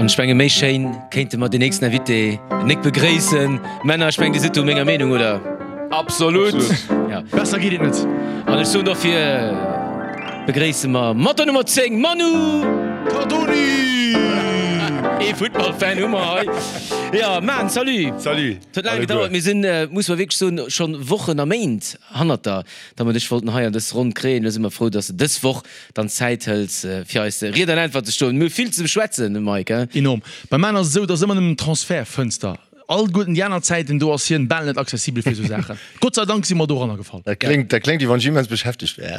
An ech menge méi schéin kéinte mer den nächsten Invité nik begréissen. Männer, ech mengen Dir sidd do menger Meenung, oder? Absolut! Ja. Besser geet et net. An ech soen dofir begréisse mer mat der Nummer 10 Manu Cardoni! Ee Futtballfan hu mer hei. Jo, Man, salut! Salut! Et huet laang gedauert, mir sinn, muss mer wierklech soen, schonn Wochen a Méint hannert der, datt mer dech wollten hei an dës Ronn kréien. Elo si mer frou, datt s de dës Woch dann Zäit hëls fir eis Ried an Äntwert ze stoen. Mir hu vill ze beschwätzen, Mike, he? Enorm. Beim Man ass et esou, et ass ëmmer nëmmen Transfertfënster. All guerten déi aner Zäiten, do ass hien bal net accessibel fir esou Saachen. Gott sei Dank si mer doranner gefall. Dat kléngt, dat kléngt wéi wann ech immens beschäftegt wär.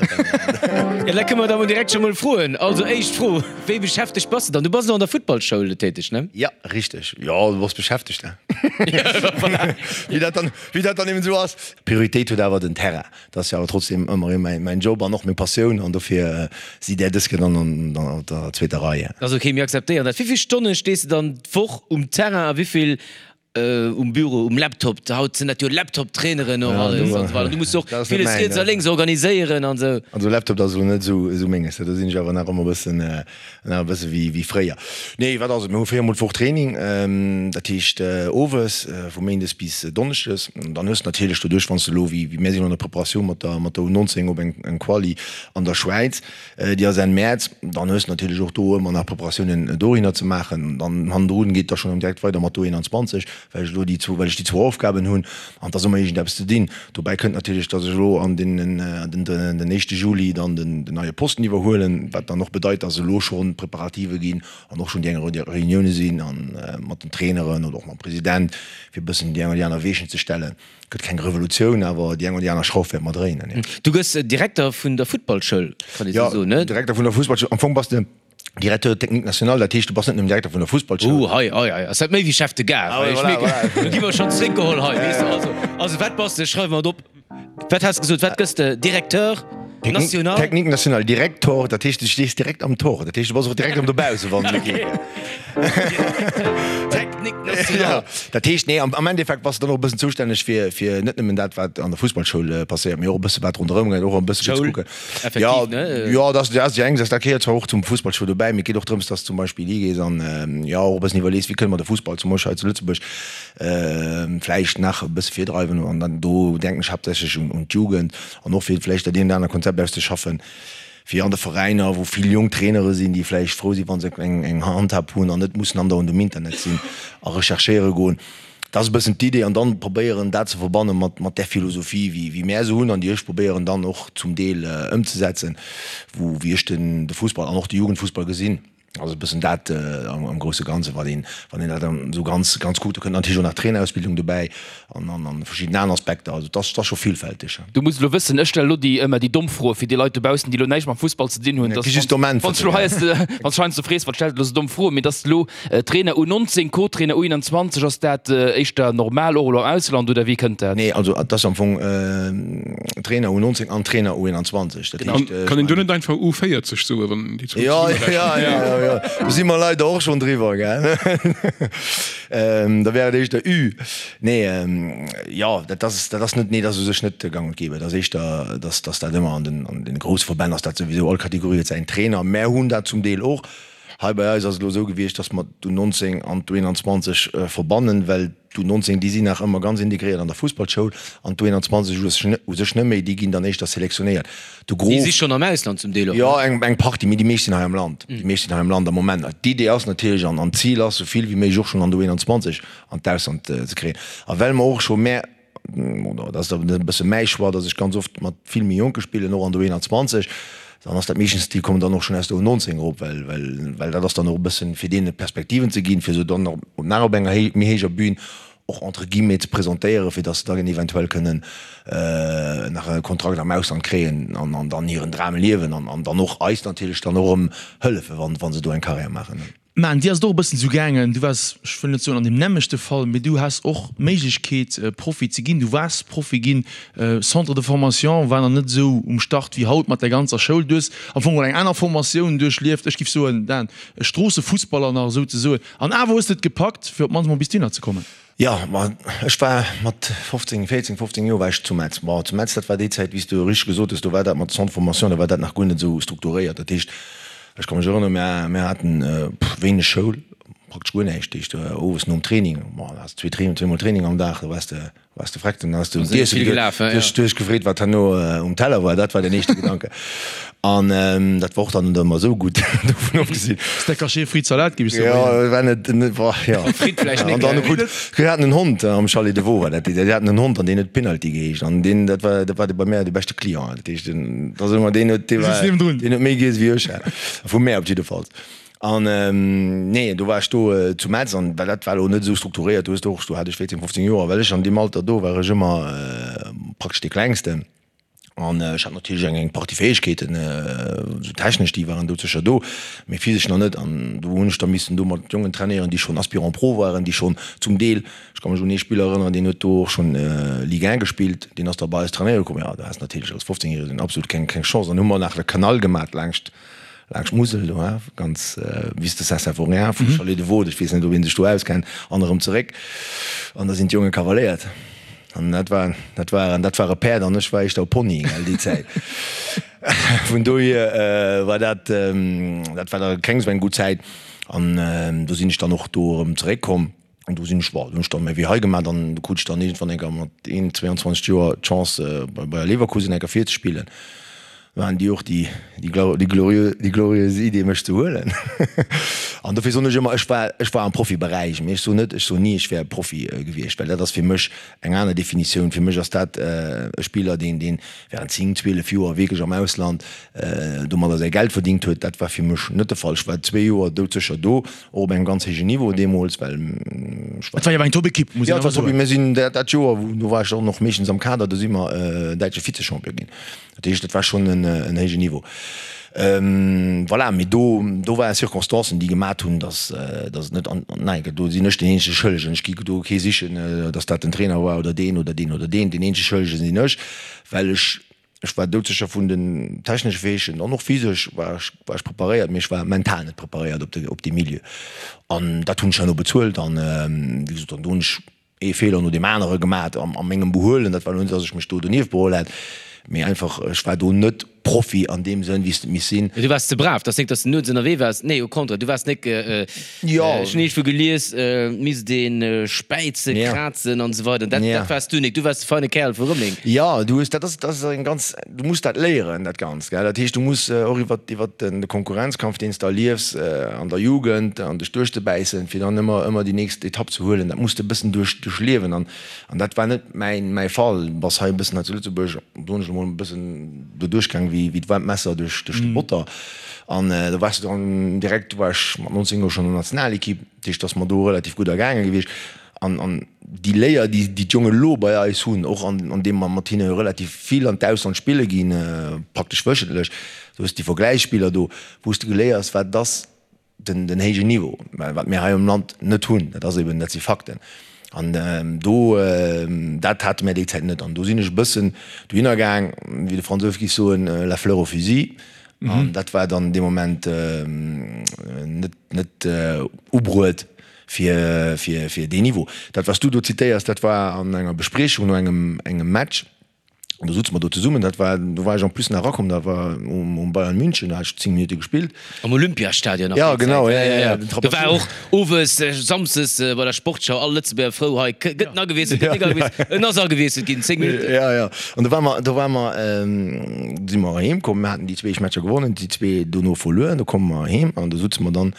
Jo, da kënne mer da mol direkt scho mol froen. Also éischt Fro, Wéi beschäftegt bass de dann? Du bass elo an der Futtballschoul täteg, ne? Jo, richteg. Jo, du bass beschäftegt, ne? Voilà. Wéi dat dann, wéi dat dann eben esou ass. Prioritéit huet awer den Terrain. Dat ass jo awer trotzdem ëmmer erëm mäin Job an och meng Passioun an dofir si där dës Kéier dann an der zweeter Rei. Dat ass ok, mir akzeptéieren dat. Wéi vill Stonne stees de dann d'Woch um Terrain a wéi vill um Büro, um Laptop? Haut sinn dat jo Laptop-Traineren och alles an esou weider. Du muss jo och villes riets a lénks organiséieren an esou. Also Laptop, dat ass elo net esou menges, do sinn ech awer nach ëmmer e bëssen Nach e bësse wéi fréier. Nee, wat ass et? Mir hu 4 mol d'Woch Training, dat heescht owes, vu méindes bis donneschdes. An dann hues de natierlech doduerch, wann s de elo, wéi mir sinn an der Preparatioun mat der mat der U19 op eng Quali an der Schwäiz, déi ass Enn Mäerz, dann hues de natierlech och do ëmmer nach Preparatiounen dohinner ze maachen. Dann hannendrun geet da schonn direkt weider mat der U21, well ech elo déi zwou, well ech déi zwou Aufgaben hunn an et ass ëmmer iergendeppes ze dinn. Dobäi kënnt natierlech, datt ech elo an deenen, den, den éischte Juli dann den, den neie Posten iwwerhuelen, wat dann och bedeit, datt elo schonn Preparative ginn an och schonn déi eng oder Reunioune sinn a mat den Traineren oder och mam President, fir e bëssen déi eng oder déi aner Weechen ze stellen. Gëtt keng Revolutioun, awer déi eng oder déi aner Schrauf wäerte mer dréinen, jo. Du gëss Direkter vun der Futtballschoul, kann ee sou soen, ne? Jo, Direkter vun der Fussballschoul. Am Fong bass de Directeur technique national, dat heescht, du bass net nëmmen Direkter vun der Fussballschoul. Uh, hei, hei, hei ass dat méi wéi Chef de Gare. Ah, voilà, voilà. Do gi mer schonn zréckgeholl hei, weess de. Also, also wat bass de? Schreiwe mer et op. Wat has de gesot? Wat gëss de? Directeur national? Technique national, Direktor, dat heescht, du stees direkt am Tor. Dat heescht, du bass och direkt am dobausse, wann et geet. Directeur technique national. Ja, dat heescht, nee, am, am Endeffekt bass de dann och e bëssen zoustänneg fir, fir net nëmmen dat, wat an der Fussballschoul passéiert, mee och e bësse wat ronderëm geet, och e bësse fir ze Schoul. kucken. Effektiv, Ja, ne? jo, dat ass, dat ass déi eng Saach. Dat gehéiert zwar och zum Fussballschoul dobäi, mee et geet och drëms, dass zum Beispill higees an, jo, och e bëssen iwwerlees, wéi kënne mer de Fussball zum Beispill hei zu Lëtzebuerg vläicht nach e bësse virdreiwen. An dann do denken ech haaptsächlech un, un d'Jugend an och fir vläicht dat eent oder anert Konzept auszeschaffen, fir an de Veräiner, wou vill jonk Trainere sinn, déi vläicht frou sinn, wa se eng, eng Handhab hunn an net mussen andauernd um Internet sinn a recherchéiere goen. Dat ass e bëssen d'Idee an dann probéieren dat ze verbanne mat mat där Philosophie wéi wéi mär se hunn an déi ech probéieren dann och zum Deel ëmzesetzen, wou wéi ech den de Fussball an och de Jugendfussball gesinn. Also e bëssen dat am am grousse Ganze wat een wann een dat dann esou ganz ganz kuckt. Do kënnt natierlech och nach d'Trainerausbildung dobäi an an an verschidden aner Aspekter. Also et ass et ass scho villfälteg. Du muss elo wëssen, ech stelle elo déi ëmmer déi domm Froe fir déi Leit dobaussen, déi elo näischt mam Fussball ze dinn hunn, dass wann s du elo hei wann s du heiansdo frees, wat stellt elo esou domm Froen, mee dass elo Trainer U19, Co-Trainer U21, ass dat éischter normal och elo am Ausland oder wéi kënnt dat? Nee, also et ass am Fong Trainer U19 an Trainer U21. Dat heescht, ech Kann een do net einfach U40 soen, wann déi zwou Jo, zesummerechnen? jo, jo, jo, do si mer leider och schonn driwwer, gell. Da wär et éischter Ü. Nee, jo, dat ass, dat ass net, nee, dat ass u sech net gang und gäbe. Et ass éischter, dass, dass dat ëmmer an den, an den grousse Verbänn ass dat souwisou, all Kategorie huet säin Trainer. Mär hunn dat zum Deel och. Hei bei eis ass et elo esou gewiescht, dass mer d'U19 an d'U21 verbannen, well d'U19, déi sinn nach ëmmer ganz integréiert an der Fussballschoul an d'U21 u sech net méi, déi ginn dann éischter selektionéiert. De Déi Gros. si schonn am Ausland zum Deel och, ne? Jo, eng Partie, mee déi meescht sinn hei am Land. Déi meescht sinn hei am Land am Moment. D'Idee ass natierlech an d'Zil ass, esou vill wéi méiglech och schonn an der U21 an d'Ausland ze kréien. A well mer och scho mä, Oder dat ass dann e bësse mäi Choix, datt ech ganz oft mat vill méi Jonke spillen, och an der U21. Dann ass dat meeschtens, déi kommen dann och schonn aus der U19 erop, well, well, well dat ass dann och e bëssen, fir deene Perspektiven ze ginn, fir se dann och nach op enger héi, méi héijer Bühn och entre guillemets ze presentéieren, fir datt se dann eventuell kënnen nach e Kontrakt am Ausland kréien an, an dann hiren Dram liewen an, an dann och eis natierlech dann och erëm hëllefen, wann, wa se do eng Karriär maachen. Mä dir ass et och e bëssen esou gaangen, du waars, ech wëll net soen an deem nämmlechte Fall, mee du has och d'Méiglechkeet Profi ze ginn, du waars Profi ginn, Centre de formation war nach net esou um Start wéi haut mat der ganzer Schoul, du hues am Fong geholl eng aner Formatioun duerchlieft, ech giff soen, Dan, e Stroossefussballer nach esou ze soen, an awer hues de et gepackt fir op d'mannst mol bis dohinner ze kommen. Jo, ma ech war mat 15, 14, 15 Joer war ech zu Metz. Bon, zu Metz, dat war déi Zäit, wéi s du richteg gesot hues, do war dat mat Centre de formation, do war dat nach guer net esou strukturéiert. Dat heescht, ech ka mech erënneren, mär, mär haten wéineg Schoul. praktesch guer näischt. Dat heescht, owes nom Training, bon, da has de zweemol Training am Dag, da waars de, waars de vreckt. Dann has de un d'Iesse geduet, du hues, du hues gefreet, wat herno um Teller war. Dat war den éischte Gedanke. An dat war och dann net ëmmer esou gutt, dovun ofgesinn. Steak haché, Frites, Salat, géif ech soen. Jo, war net, net, boah, jo. Frites vläicht net, gell? An dann krut, mir haten en Hond am Chalet de Vaux war dat, déi haten en Hond an deen huet Penalty geheescht. An deen, dat war, dat war de bei mär de beschte Client. Dat heescht, den, dat ass ëmmer, deen huet, dee war, deen huet méi giess wéi ech, vu mär op jiddefalls. An nee, do war ech do zu Metz an well dat war elo net esou strukturéiert. Du hues do och, do hat ech 14, 15 Joer, well ech an deem Alter do war ech ëmmer praktesch dee Klengsten. An ech hat natierlech eng eng Partie Fäegkeeten, esou technesch, déi waren doudsécher do, mee physesch nach net. An do hunn ech da missen do mat Jongen trainéieren, déi schonn Aspirant Pro waren, déi schonn zum Deel, ech ka mech un ee Spiller erënneren, deen huet do och schonn Ligue 1 gespillt, deen ass da bei eis trainéiere komm. Jo, do has natierlech als 15 Järegen absolut keng keng Chance. An hu mer nach de Kanal gemat laangscht Laanscht d'Musel do, hein, ganz vis de Saint-Symphorien, vum Chalet de Vaud, ech weess net, ob ee sech do auskennt, an erëm zeréck. An da sinn d'Jonge kavaléiert. An dat war, dat waren, dat ware Päerd an ech war éischter e Pony, gell, déi Zäit. Vun dohier war dat, dat war da keng esou eng gutt Zäit. An do sinn ech dann och do erëm zeréckkomm. An do sinn ech, bon, do hunn ech dann méi wéi hei gemaach. Dann do krut ech dann iergendwann eng Kéier mat 21, 22 Joer d'Chance bei Bayer Leverkusen eng Kéier virzespillen. Do haten déi och déi, déi déi glorieux, déi glorieuse Idee mech ze huelen. An dofir soen ech ëmmer, ech war, ech war am Profiberäich, mee ech soen net, ech soen ni, ech wär Profi gewiescht, well dat ass fir mech eng aner Definitioun. Fir mech ass dat e Spiller, deen, deen während 10, 12 Joer wierklech am Ausland domadder säi Geld verdingt huet. Dat war fir mech net de Fall. Ech war zwee Joer doudsécher do. Och op engem ganz héijen Niveau deemools, well ech war. Et war jo awer eng Top-Ekipp, muss een awer soen. Mir sinn dat Joer, do war ech och nach meeschtens am Kader, do si mer däitsche Vize-Champion ginn. Dat heescht, dat war schonn en héijen Niveau. Voilà, mee do, do ware Circonstancen, déi gemat hunn, datt, datt et net an, nein, do sinn ech deen eenzege Schëllegen. Ech gi do kee sichen, datt dat den Trainer war oder deen oder deen oder deen. Deen eenzege Schëllege sinn ech, well ech Ech war doudsécher vun den technesche Fäegkeeten an och physesch war ech, war ech preparéiert, mee ech war mental net preparéiert op de, op dee Milieu. An dat hunn ech herno bezuelt an, wéi gesot, an do hunn ech ee Feeler no deem anere gemat a mengem Behuelen. Dat war elo net, datt ech mech do donieft beholl hätt, mee einfach, ech war do net Profi an deem Sënn, wéi s de et misst sinn. Mee du waars ze brav. 't ass nik, datt s de nuets ënnerwee waars. Nee, au contraire, du waars nik, Ech hunn iergendwou gelies, et misst ee späizen, krazen an esou weider. Dat dat waars du nik. Du waars de feine Kärel vu Rëmeleng. Jo, du hues, dat ass, dat ass eng ganz, du muss dat léieren, dat Ganzt, gell. Dat heescht, du muss och iwwer, iwwer den de Konkurrenzkampf, deen s de erliefs an der Jugend, an dech duerchzebäissen, fir dann ëmmer, ëmmer déi nächst Etapp ze huelen, dat muss de e bëssen duerch, duerchliewen. An, an dat war net mäin, mäi Fall. Du bass hei e bëssen hei zu Lëtzebuerg, soen ech emol, e bëssen do duerchgaang wéi, wéi d'waarmt Messer duerch, duerch de Botter. An do waars de dann direkt, do war ech mat 19 Joer schonn an der Nationalekipp, dat heescht, et ass mer do relativ gutt ergaange gewiescht. An, an déi Léier, déi déi d'Jongen elo bei eis hunn, och an, an deem mer mat hinne relativ vill an d'Ausland spille ginn, praktesch wöchentlech, do hues de déi Vergläichsspiller do, wou s de geléiers, wat et ass, den, den héijen Niveau, wat mir hei am Land net hunn. Dat ass eben, dat si Fakten. An do, dat hate mir déi Zäit net. An do sinn ech e bëssen dohinner gaang, wéi de Fransous géif soen, la fleur au fusil. An dat war dann dee Moment net, net ubruet fir, fir, fir deen Niveau. Dat, wat s du do zitéiers, dat war an enger Bespriechung no engem, engem Match. An do sutze mer do zesummen, dat war, do war ech en plus nach erakomm, dat war um, um Bayern München, do hat ech 10 Minutte gespillt. Am Olympiastadion nach Ja, genau, ja, ja, ja. Do war och owes, samsdes bei der Sportschau all Lëtzebuerger frou, hei gëtt en agewiesselt, gëtt nik agewiesselt, en ass agewiesselt ginn, 10 Minutten. Ja, ja. An do war mer, do war mer, do si mer heem komm, mir haten déi zwee éischt Matcher gewonnen, déi zwee dono verluer, do komme mer heem an do sutze mer dann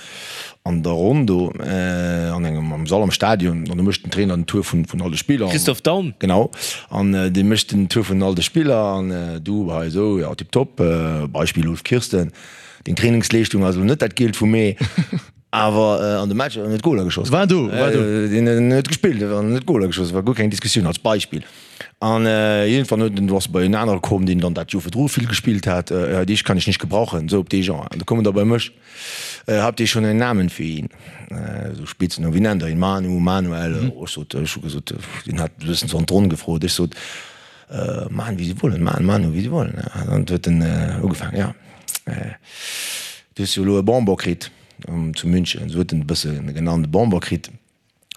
An der Ronn do an engem am Sall am Stadion, an do mécht den Trainer den Tour vun vun all de Spiller. Christoph Daum. Genau, an dee mécht den Tour vun all de Spiller an du hei esou, jo tiptop. Beispill Ulf Kirsten, deng Trainingsleeschtung ass elo net dat Gielt vum Mee, awer an de Matcher huet en net Goler geschoss. War do, war do. Deen huet gespillt, an net Goler geschoss, war guer keng Diskussioun als Beispill. An iergendwann huet en, du ass bei en anere komm, deen dann dat Joer virdru vill gespillt hat, ja dich kann ich nicht gebrauchen, esou op dee Genre. An du koum en da bei mech. Habt ihr schon einen Namen für ihn? Esou Spitznamen, wéi nennt der ihn? Manu, Manuel? Ech sot, ech hu gesot, deen hat e bëssen sou an d'Ronn gefrot, ech sot, Machen wie Sie wollen, Manu, Manu, wie Sie wollen. An dann huet en ugefaangen, ja, du hues jo elo e Bonbon kritt zu München, esou huet en e bësse genannt, e Bonbon kritt.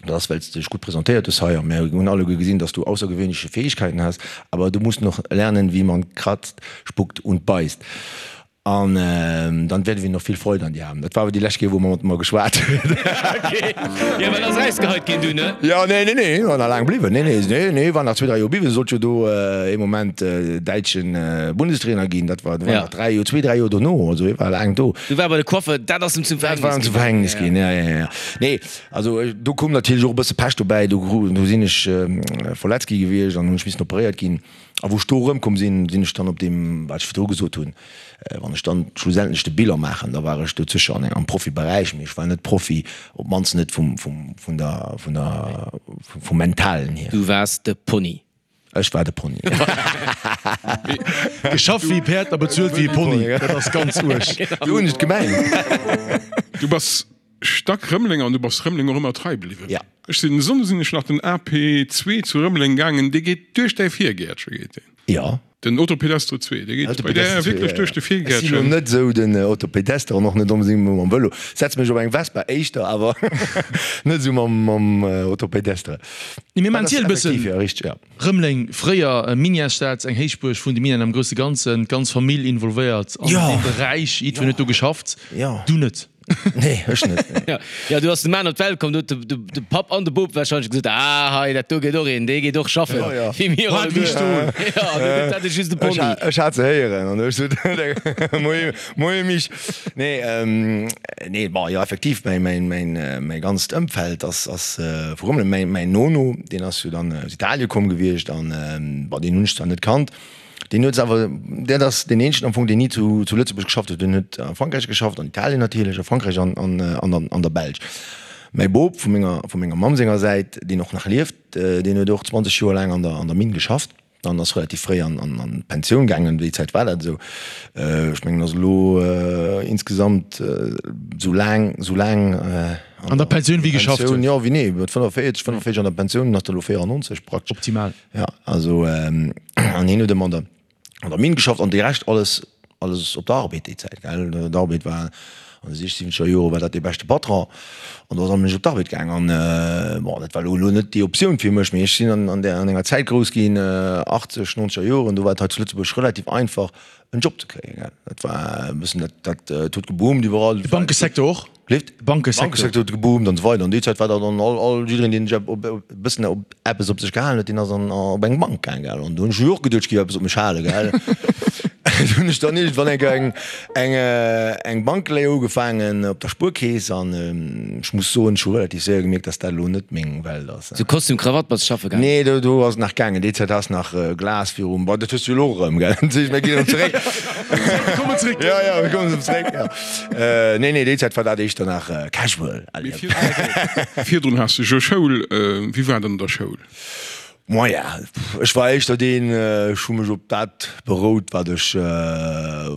Dat ass, well s de dech gutt presentéiert hues hei a mir hunn alleguer gesinn, dass du aussergewöhnliche Fähigkeiten has, aber du musst noch lernen, wie man kratzt, spuckt und beisst. An dann werden wir noch viel Freude an dir haben. Dat war awer déi lescht Kéier, wou mer mat mer geschwat huet. Okay. Jo, well ass erausgeheit ginn dunn, ne? Jo, nee, nee, nee, war nach laang bliwwen. Nee, nee, nee, nee, war nach zwee, dräi Joer bliwwen. Sollt jo do ee Moment däitschen Bundestrainer ginn. Dat war, war nach dräi Joer, zwee, dräi Joer dono. Also hie war laang do. Du war bei de Coiffer, dat ass em zum Verhängnis ginn. Dat war em zum Verhängnis ginn, ja, ja, ja. Nee, also do koum natierlech och e bësse Pech dobäi. Do, do sinn ech verletzt gi gewiescht an hunn ech missen operéiert ginn. A wou ech do erëmkomm sinn, sinn ech dann op deem, wat ech virdru gesot hunn, wann ech dann schlussendlech de Bilan maachen, da war ech dozécher an am Profiberäich, mee ech war net Profi, op d'mannst net vum, vum, vun der, vun der, vum Mentalen hier. Du waars de Pony. Ech war de Pony. Geschafft wéi e Päerd a bezuelt wéi e Pony, dat ass ganz uerg. Esou hunn ech et gemengt. Du bass Stack Rëmeleng an du bass Rëmeleng och ëmmer trei bliwwen. Ja. Ech sinn, e Sonnde sinn ech nach den AP 2 zu Rëmeleng gaangen, dee geet duerch däi Virgäertche geet deen. Ja. Den Autopedestre 2, dee geet bei där wierklech duerch de Virgäertchen. Ech sinn elo net esou den Autopedestre an och net onbedéngt mam Vëlo. Setze mech op eng Vespa éischter, awer net esou mam Autopedestre. Nee, mir maachen d'Ziel e bëssen. Effektiv, ja, richteg, ja. Rëmeleng, fréier Minièresstad, eng Héichbuerg vun de Minen am grousse Ganzen, d'ganz Famill involvéiert an deem Beräich, jiddwereen huet do geschafft, du net. Nee, ech net. Nee. Jo, du ass de Mann op d'Welt komm, do huet de Papp an de Bop warscheinlech gesot, Ah, hei, dat do gëtt och een, dee geet och schaffen, wéi mir alleguer. Jo, du gëtt dat just de Pony. Ech hat se héieren an ech sot, Moie, moie Mich. Nee, nee, bon, jo, effektiv, mäin, mäin, mäin, mäi ganzt Ëmfeld ass, ass vu Rëmeleng. Mäin, mäin Nono, deen ass jo dann aus Italie komm gewiescht an, bon, deen hunn ech zwar net kannt, Deen huet awer, dat ass deen eenzegen am Fong, deen ni zu Lëtzebuerg geschafft huet. Deen huet a Frankräich geschafft, an Italien natierlech, a Frankräich an an der Belsch. Mäi Bop vu menger, vu menger Mamm senger Säit, deen och nach lieft, deen huet och 20 Joer laang an der, an der Minn geschafft an ass relativ fréi an, an d'Pensioun gaangen. Déi Zäit war dat esou. Ech mengen, ass elo insgesamt esou laang, esou laang an der Pensioun wéi geschafft huet. Jo, wéi nee, mat 45, 45 an der Pensioun, ass der elo 94 praktesch. Optimal. Ja, also an hien huet ëmmer an der, an der Minn geschafft an de Rescht alles, alles op der Arbed déi Zäit, gell. D'Arbed war an de sichziwwenzeger Jore war dat dee beschte Patron an do ass allem op d'Arbed gaang an bon, dat war elo elo net déi Optioun fir mech, mee ech sinn an, an där, an enger Zäit grouss ginn, achtzeg, nonzeger Joren, do war et hei zu Lëtzebuerg relativ einfach en Job ze kréien, gell. Dat war e bëssen dat, dat, et huet geboomt iwwerall. De Bankesecteur och? Leeft? De Bankesecteur. Bankesecteur huet geboomt an esou weider. An déi Zäit war dat dann all, all, jiddereen, deen sech op, e bëssen op eppes op sech gehalen huet, deen ass an, op eng Bank gaang, gell. An do hunn ech jo och geduecht, ech géif eppes op mech halen, gell. Du hunn ech dann iergendwann eng Kéier eng, eng, eng Bankléier ugefaangen op der Spuerkeess an ech muss soen, ech hu relativ séier gemierkt, dass dat elo net meng Welt ass. Sou Kostüm, Krawatt bass schaffe gaangen? Nee, do, do ass et nach gaangen. Déi Zäit has nach Glas virum, bon, dat hues du jo elo erëm, gell. Mir ginn erëm zeréck. Mir kommen zeréck. Jo, jo, mir kommen erëm zeréck, jo. Nee, nee, déi Zäit war dat éischter nach casual. Mee virdrun has de jo Schoul. Wéi war dat an der Schoul? Moyen, ech war éischter deen, ech hu mech op dat berout, wat ech,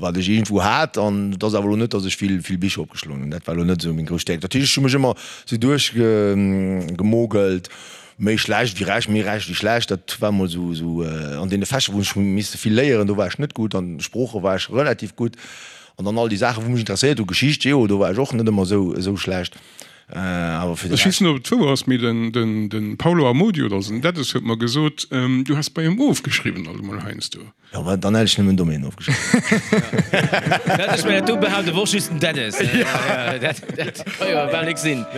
wat ech iergendwou hat. An et ass awer elo net, datt ech vill, vill Bicher opgeschloen hunn. Dat war elo net esou meng grouss Stäerkt. Dat heescht, ech hu mech ëmmer esou duerchgemogelt, méi schlecht wéi recht, méi recht wéi schlecht. Dat war emol esou, esou an deene Fächer, wou ech hu misse vill léieren, do war ech net gutt. An Sprooche war ech relativ gutt. An dann all déi Saachen, wou mech interesséiert hu, Geschicht, Geo, do war ech och net ëmmer esou, esou schlecht. Awer fir de Ech weess net, ob et wouer ass, mee den Paulo Amodio oder den Dennis huet mer gesot, du häss bei him ofgeschriwwen alt emol heiansdo. Jo, mä dann hätt ech nëmmen Domaine ofgeschriwwen. Dat ech mir dat do behaapte wor just den Dennis. Dat ka jo bal nik sinn.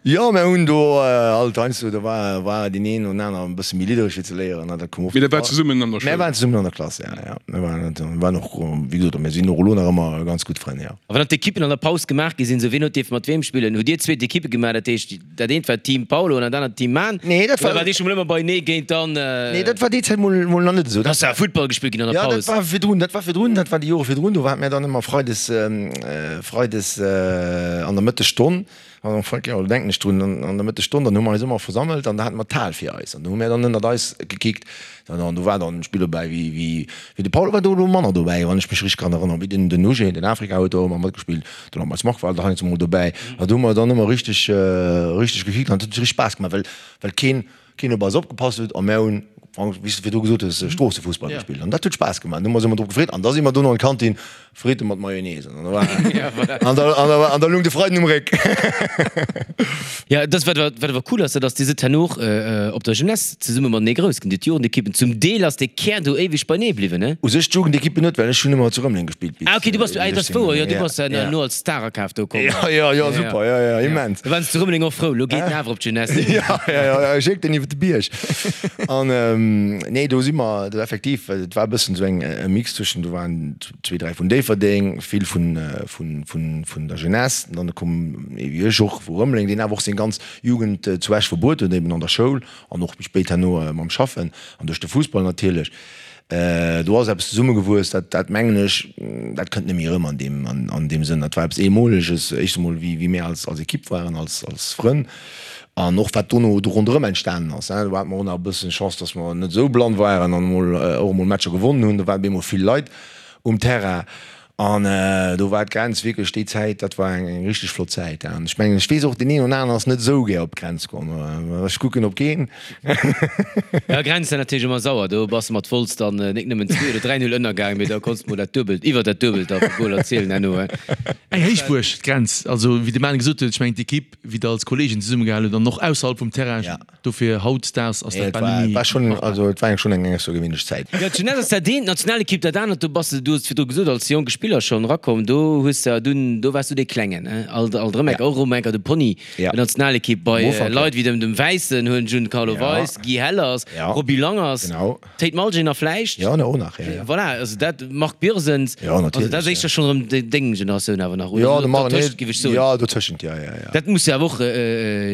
Jo, mir hunn do alt heiansdo, do war war deen een oder aner e bësse méi liddereg fir ze léieren, dat koum oft. Mee der waart zesummen an der Schoul? Mir waren zesummen an der Klass, ja, ja. Mir waren, mir waren och, wéi gesot, mir sinn och elo nach ëmmer ganz gutt Frënn, jo. A wann dann d'Ekippen an der Paus gemaach gi sinn, sou wien huet dierfe mat weem spillen? Hutt dir zwee d'Ekippe gemaach, dat heescht dat eent war Team Paulo an dat anert Team Man? Nee, dat war. Oder waart dir scho mol ëmmer beienee géint dann? Nee, dat war déi Zäit mol, mol nach net esou. Da ass ja Futtball gespillt ginn an der Ja, Paus. dat war virdrun, dat war virdrun, dat war déi Jore virdrun, do hate mir dann ëmmer freides, freides an der Mëttesstonn, An Frank, jo, do denken ech drun, an der Mëttesstonn, dann hu mer eis ëmmer versammelt an da hate mer d'Hal fir eis an do hu mir dann ënnert eis gekickt. An do war dann e Spill dobäi wéi, wéi, wéi de Paul war do elo manner dobäi, wann ech mech richteg kann erënneren, wéi den, den Uge, den Afrika huet do ëmmer matgespillt, de Lambert Mark war da heiansdo mol dobäi. An do hu mer dann ëmmer richteg, richteg gekickt an et huet richteg Spaass gemaach, well, well keen, keen op eis opgepasst huet a mär hunn. Wéi s de virdru gesot hues, Stroossefussball gespillt an dat huet Spaass gemaach. Do hu mer eis ëmmer drop gefreet an da si mer dono an d'Kantin Fritte mat Mayonnaise an da war an da an da an da lung de Freiden um Réck. Ja, dat wat wat awer cool ass, dat ass, Dir sidd herno och op der Jeunesse zesumme matenee grouss ginn, d'Jugendekippen. Zum Deel ass dee Kär do éiweg beinee bliwwen, ne? U sech d'Jugendekippen net, well ech hunn ëmmer zu Rëmeleng gespillt bis. Ah ok, du bass, ah dat ass wouer, jo, du bass herno als Starerkaf do komm. Jo, jo, jo, super, jo, jo, immens. Da waren se zu Rëmeleng och frou, lo geet en awer op d'Jeunesse. Jo, jo, jo, schéck den iwwer de Bierg. An nee, do si mer do effektiv, et war e bëssen esou eng e Mix zwëschen, do waren zwee, dräi vun Déifferdeng, vill vun, vun, vun, vun der Jeunesse, an dann koum ee wéi ech och vu Rëmeleng, deen awer och seng ganz Jugend zu Esch verbruet huet, eben an der Schoul an och méi spéit herno mam Schaffen an duerch de Fussball natierlech. Do ass eppes zesummegewuess, dat, dat mengen ech, dat kënnt net méi erëm an deem, an, an deem Sënn. Dat war eppes Eemoleges, éischt emol wéi, wéi mir als, als Ekipp waren, als, als Frënn an och wat dono do ronderëm entstanen ass. Do hate mer och nach e bëssen Chance, dass mer net esou blann waren an emol, och emol Matcher gewonnen hunn. Do waren op eemol vill Leit um Terrain An do war d'Grenz wierklech déi Zäit, dat war eng richteg flott Zäit. An ech mengen, ech weess och, deen een oder aneren ass net esou gär op d'Grenz komm. Ech kucken op keen. Jo, Grenz war natierlech ëmmer sauer. Do bass de mat Wolz dann nik nëmmen 2 oder 3 Null ënnergaang, mee da konns de mol dat Duebelt, iwwer dat Duebelt da vu Goler zielen herno. Eng Héichbuerg, d'Grenz. Also wéi de Manu gesot huet, ech mengen d'Ekipp, wéi der als Kollegen zesummegehal hutt an och ausserhalb vum Terrain, Dofir hautdesdaags ass dat bal net méi machbar. Also et war eng schonn eng aussergewéinlech Zäit. Jo, d'Jeunesse ass dat eent, d'Nationalekipp dat anert. Do bass de, du hues et virdru gesot, als jonke Spiller schonn erakomm. Do hues de dunn, do waars du dee Klengen, he? Alt, alt erëm enker, och erëm enker de Pony der Nationalekipp bei Leit wéi dem, dem Wäissen, huelen Giancarlo Weis, Guy Hellers, Roby Langers. Théid Malgin a vläicht. Jo, och nach, jo, jo. Voilà, also dat, Marc Birsens. Jo, natierlech. Also dat ass éischter schonn erëm deng Generatioun awer nach, oder? Jo, de Marc, nee, géif ech soen. Jo, dotëschent, jo, jo, jo. Dat muss jo awer och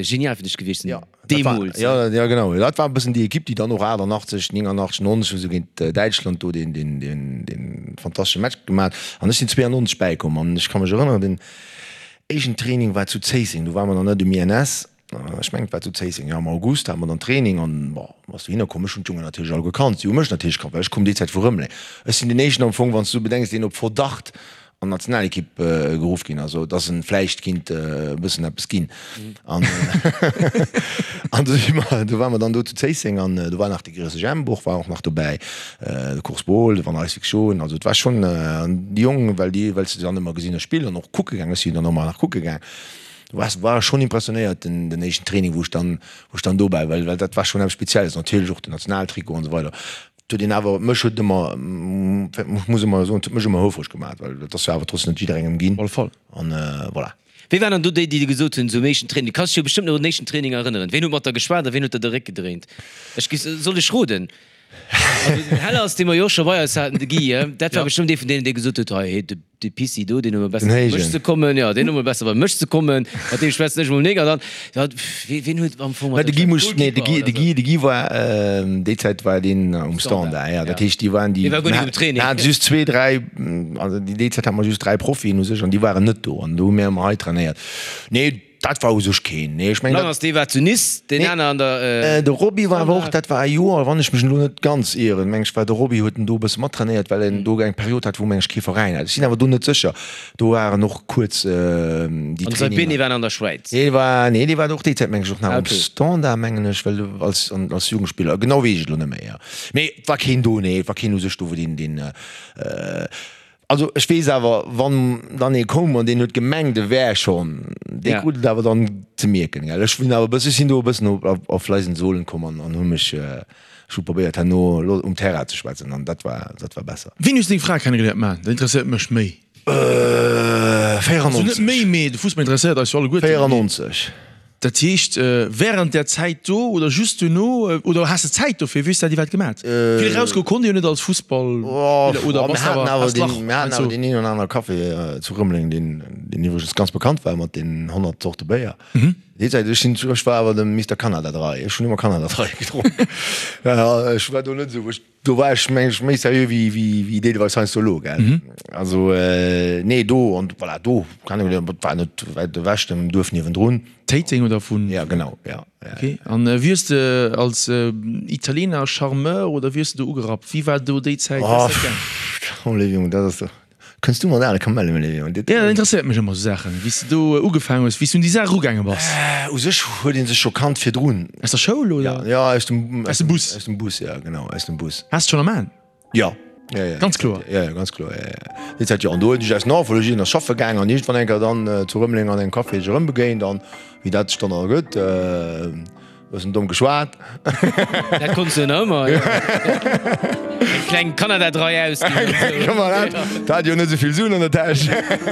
genial fir dech gewiescht sinn, deemools. Jo, jo, genau. Dat war e bëssen déi Ekipp, déi dann och 88, 89, 90 esou géint Däitschland do deen, deen, deen, deen fantastesche Match gemaach huet. An ech sinn 92 bäikomm an ech ka mech erënneren, den éischten Training war zu Zéisseng, do ware mer nach net um INS. Ech mengen, et war zu Zéisseng, jo, am August hate mer dann Training an, bon, bass dohinner komm. Ech hunn d'Jongen natierlech all gekannt, si hu mech natierlech kannt, well ech koum déi Zäit vu Rëmeleng. Ech sinn deen éischten am Fong, wann s du bedenks, deen op Verdacht an d'Nationalekipp geruff ginn ass, dass en vläicht kinnt e bëssen eppes ginn. An an do si mer, do ware mer dann do zu Zéisseng an do war nach de Gréisseg Jemp och war och nach dobäi, de Kors Bohl, de Van Rijswijk Schon, also et war schonn, an déi Jongen, well déi, well s de se dann ëmmer gesinn hues spillen an och kucke gaang, ech sinn dann och ëmmer nach kucke gaang, War war schon impressionéiert den den éischten Training wou ech dann wou ech dann dobäi well well dat war schon eppes Spezielles natierlech och den Nationaltrikot an esou weider. Et huet een awer mech huet ëmmer ech muss ëmmer soen et huet mech ëmmer houfreg gemaat well dat ass jo awer trotzdem net jidderengem ginn. Op alle Fall. An voilà. Wéi waren dann do déi déi dir gesot hunn, sou um éischten Training? Du kanns dech jo bestëmmt nach un den éischten Training erënneren. Ween huet mat der geschwat a ween huet der de Réck gedréint? Ech gi soll ech roden? Also den Hellers, dee mer jo och scho bei eis haten, de Guy, dat war bestëmmt ee vun deenen, dee gesot huet, hei, de, de Pissi do, deen hu mer besser bei mech ze kommen, jo, deen hu mer besser bei mech ze kommen, mat deem schwätzen ech emol nik. An dann, ja, ween huet am Fong mat De Guy muss, nee, de Guy, de Guy, de Guy war, déi Zäit war deen um Standard, ja, dat heescht, déi waren déi, Dee war guer nik um Training. Mir haten just zwee, dräi, also déi Zäit hate mer just dräi Profien u sech an déi waren net do an do hu mir ëmmer hei trainéiert. Nee. Dat war u sech keen, nee, ech mengen dat. Langers, dee war zu Nice, deen aner an der. De Roby war awer och, dat war e Joer, wann ech mech elo net ganz ieren, meng ech war de Roby, huet en do e bësse mattrainéiert, well en do eng Period hat, wou meng ech kee Veräin hat. Ech sinn awer do net sécher. Do waren och kuerz déi Traininger. An Saibene war an der Schwäiz. Dee war, nee, dee war och déi Zäit meng ech och nach um Standard, mengen ech, well als, als Jugendspiller, genau weess ech et elo net méi, jo. Mee et war keen do, nee, et war keen u sech do, wou deen, deen. Also ech weess awer, wann dann ee koum an deen huet gemengt e wär schonn, dee krut et awer dann ze mierken, gell. Ech hunn awer e bëssen, ech sinn do e bëssen op leisen Sohlen komm an an hu mech, ech hu probéiert herno um Terrain ze schwätzen an dat war, dat war besser. Wéini hues de deng Fra kennegeléiert? Mä dat interesséiert mech méi. 94. Also net méi, mee de Fussball interesséiert eis jo alleguerten. 94. Dat heescht während där Zäit do oder just duerno oder has de Zäit dofir? Wéi hues de dat iwwerhaapt gemat? Vill erausgoe konnt ee jo net als Fussballspiller oder bass de awer has d'Lach Mir haten awer deen een oder anere Café zu Rëmeleng, deen deen iwwregens ganz bekannt war mat den 100 Zorte Béier. Déi Zäit, ech sinn, ech war awer de Mister Canada Dry, ech hunn ëmmer Canada Dry gedronk. Ech war do net esou, ech Do war ech meng ech méi seriö wéi wéi wéi deelweis heiansdo elo, gell. Also nee, do an voilà, do kann ech et war net wäit ewech, dem Duerf niewendrun. Téiteng oder vun? Ja genau, ja, ja. Ok, an wéi hues de als Italiener Charmeur oder wéi hues de do ugerappt? Wéi war do déi Zäit? Wéi ass dat gaang? Oh, léiwe Jong, dat ass. Kënns du mat ale Kamelle, Léon? Jo, dat interesséiert mech ëmmer, esou Saachen, wéi s de do ugefaangen hues, wéi s du un déi Saach erugaange bass. U sech huet ee sech scho kannt virdrun. Aus der Schoul, oder? Ja, ja, aus dem, aus dem Bus. Aus dem Bus, ja, genau, aus dem Bus. Has de schonn am Aen? Jo. Ja, ja. Ganz kloer? Ja, ja, ganz kloer, ja, ja. Déi Zäit, jo. An do hunn ech aus Navologie, ass schaffe gaang an iergendwann eng Kéier dann zu Rëmeleng an engem Café sech erëmbegéint an wéi dat sech dann ergëtt, Bëssen domm geschwat. Dat konns du jo nach ëmmer. Eng kleng Kanada-Drai ausginn an esou. Komm mal, dat hat jo net esou vill Suen an der Täsch.